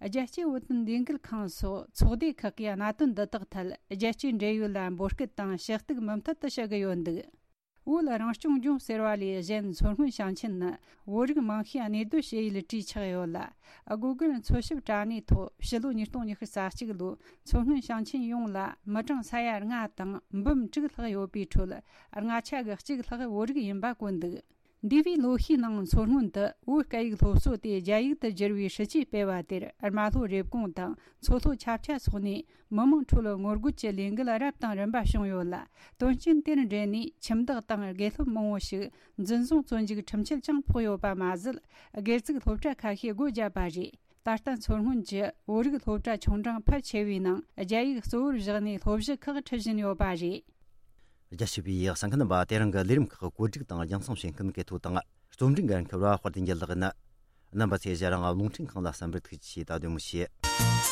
རྒྱལ་སྤྱིའི་བོད་དོན་ལས་འགུལ་ཁང་སོགས་ཚོགས་སྡེ་ཁག་གིས་གནད་དོན་འདི་དག་ཐད་རྒྱལ་སྤྱིའི་འབྲེལ་ཡོད་ལ་འབོད་སྐུལ་དང་ཞུ་གཏུག་མུ་མཐུད་དུ་བྱེད་ཀྱི་ཡོད་འདུག་བོད་རང་སྐྱོང་ལྗོངས་ཟེར་བ་ལས་གཞན་མཚོ་སྔོན་ཞིང་ཆེན་ནི་བོད་རིགས་མང་ཤོས་གནས་སྡོད་བྱེད་ཡུལ་གྲས་ཆགས་ཡོད་ལ། སྒོ་ཀུན་འཚོལ་ཞིབ་དྲ་གནས་ཐོག་ཕྱི་ལོ་ཉིས་སྟོང་ཉི་ཤུ་རྩ་གཅིག་ལོའི་མཚོ་སྔོན་ཞིང་ཆེན་ཡོངས་ལ་མི་གྲངས་ས་ཡ་ལྔ་དང་འབུམ་དྲུག་ལྷག་ཡོད་པའི་ཁྲོད་ལྔ་ཆ་གི་གཅིག་ལྷག་བོད་རིགས་ཡིན་པ་བཀོད་འདུག་འདས་པའི་ལོ་ཤས་ནང་མཚོ་སྔོན་དུ་བོད་སྐད་ཡིག་སློབ་གསོ་དེ་རྒྱ་ཡིག་ཏུ་བསྒྱུར་བའི་སྲིད་ཇུས་སྤེལ་བ་དེར་རྨ་ལྷོ་རེབ་གོང་དང་མཚོ་ལྷོ་ཆབ་ཆ་སོགས་ནས་མི་མང་ཁྲོད་ངོ་རྒོལ་གྱི་ལས་འགུལ་རབ་དང་རིམ་པ་བྱུང་ཡོད་ལ། དོན་རྐྱེན་དེར་འབྲེལ་ནས་ཁྱིམ་བདག་དང་དགེ་སློབ་མང་བོ་ཞིག་འཛིན་བཟུང་བཙོན་འཇུག་ཁྲིམས་ཆད་ཀྱང་ཕོག་ཡོད་པ་མ་ཟད། སྒེར་བཙུགས་སློབ་གྲྭ་ཁ་ཤས་སྒོ་བརྒྱབ་པ་རེད། ད་ལྟ་མཚོ་སྔོན་གྱི་བོད་རིགས་སློབ་གྲྭ་ཆུང་འབྲིང་ཕལ་ཆེ་བའི་ནང་རྒྱ་ཡིག་གཙོ་བོར་བཞག་ནས་སློབ་གཞི་ཁག་ཁྲིད་བཞིན་ཡོད་པ་རེད། རྒྱ་ཆེ་བའི་གསན་མཁན་རྣམ་པ། དེ་རིང་གི་ལས་རིམ་ཁག་བཀོད་སྒྲིག་དང་རྒྱང་སྲིང་བྱེད་མཁན་གལ་ཐོ་དང་རྩོམ་སྒྲིག་འགན་འཁུར་བ་དཔལ་ལྡན་རྒྱལ་ལགས་ཡིན། རྣམ་པ་ཚོས་ཞལ་རང་རླུང་འཕྲིན་ཁང་ལ་གསན་པར་ཐུགས་རྗེ་ཆེ། ད་དུང་མི་ཤེས།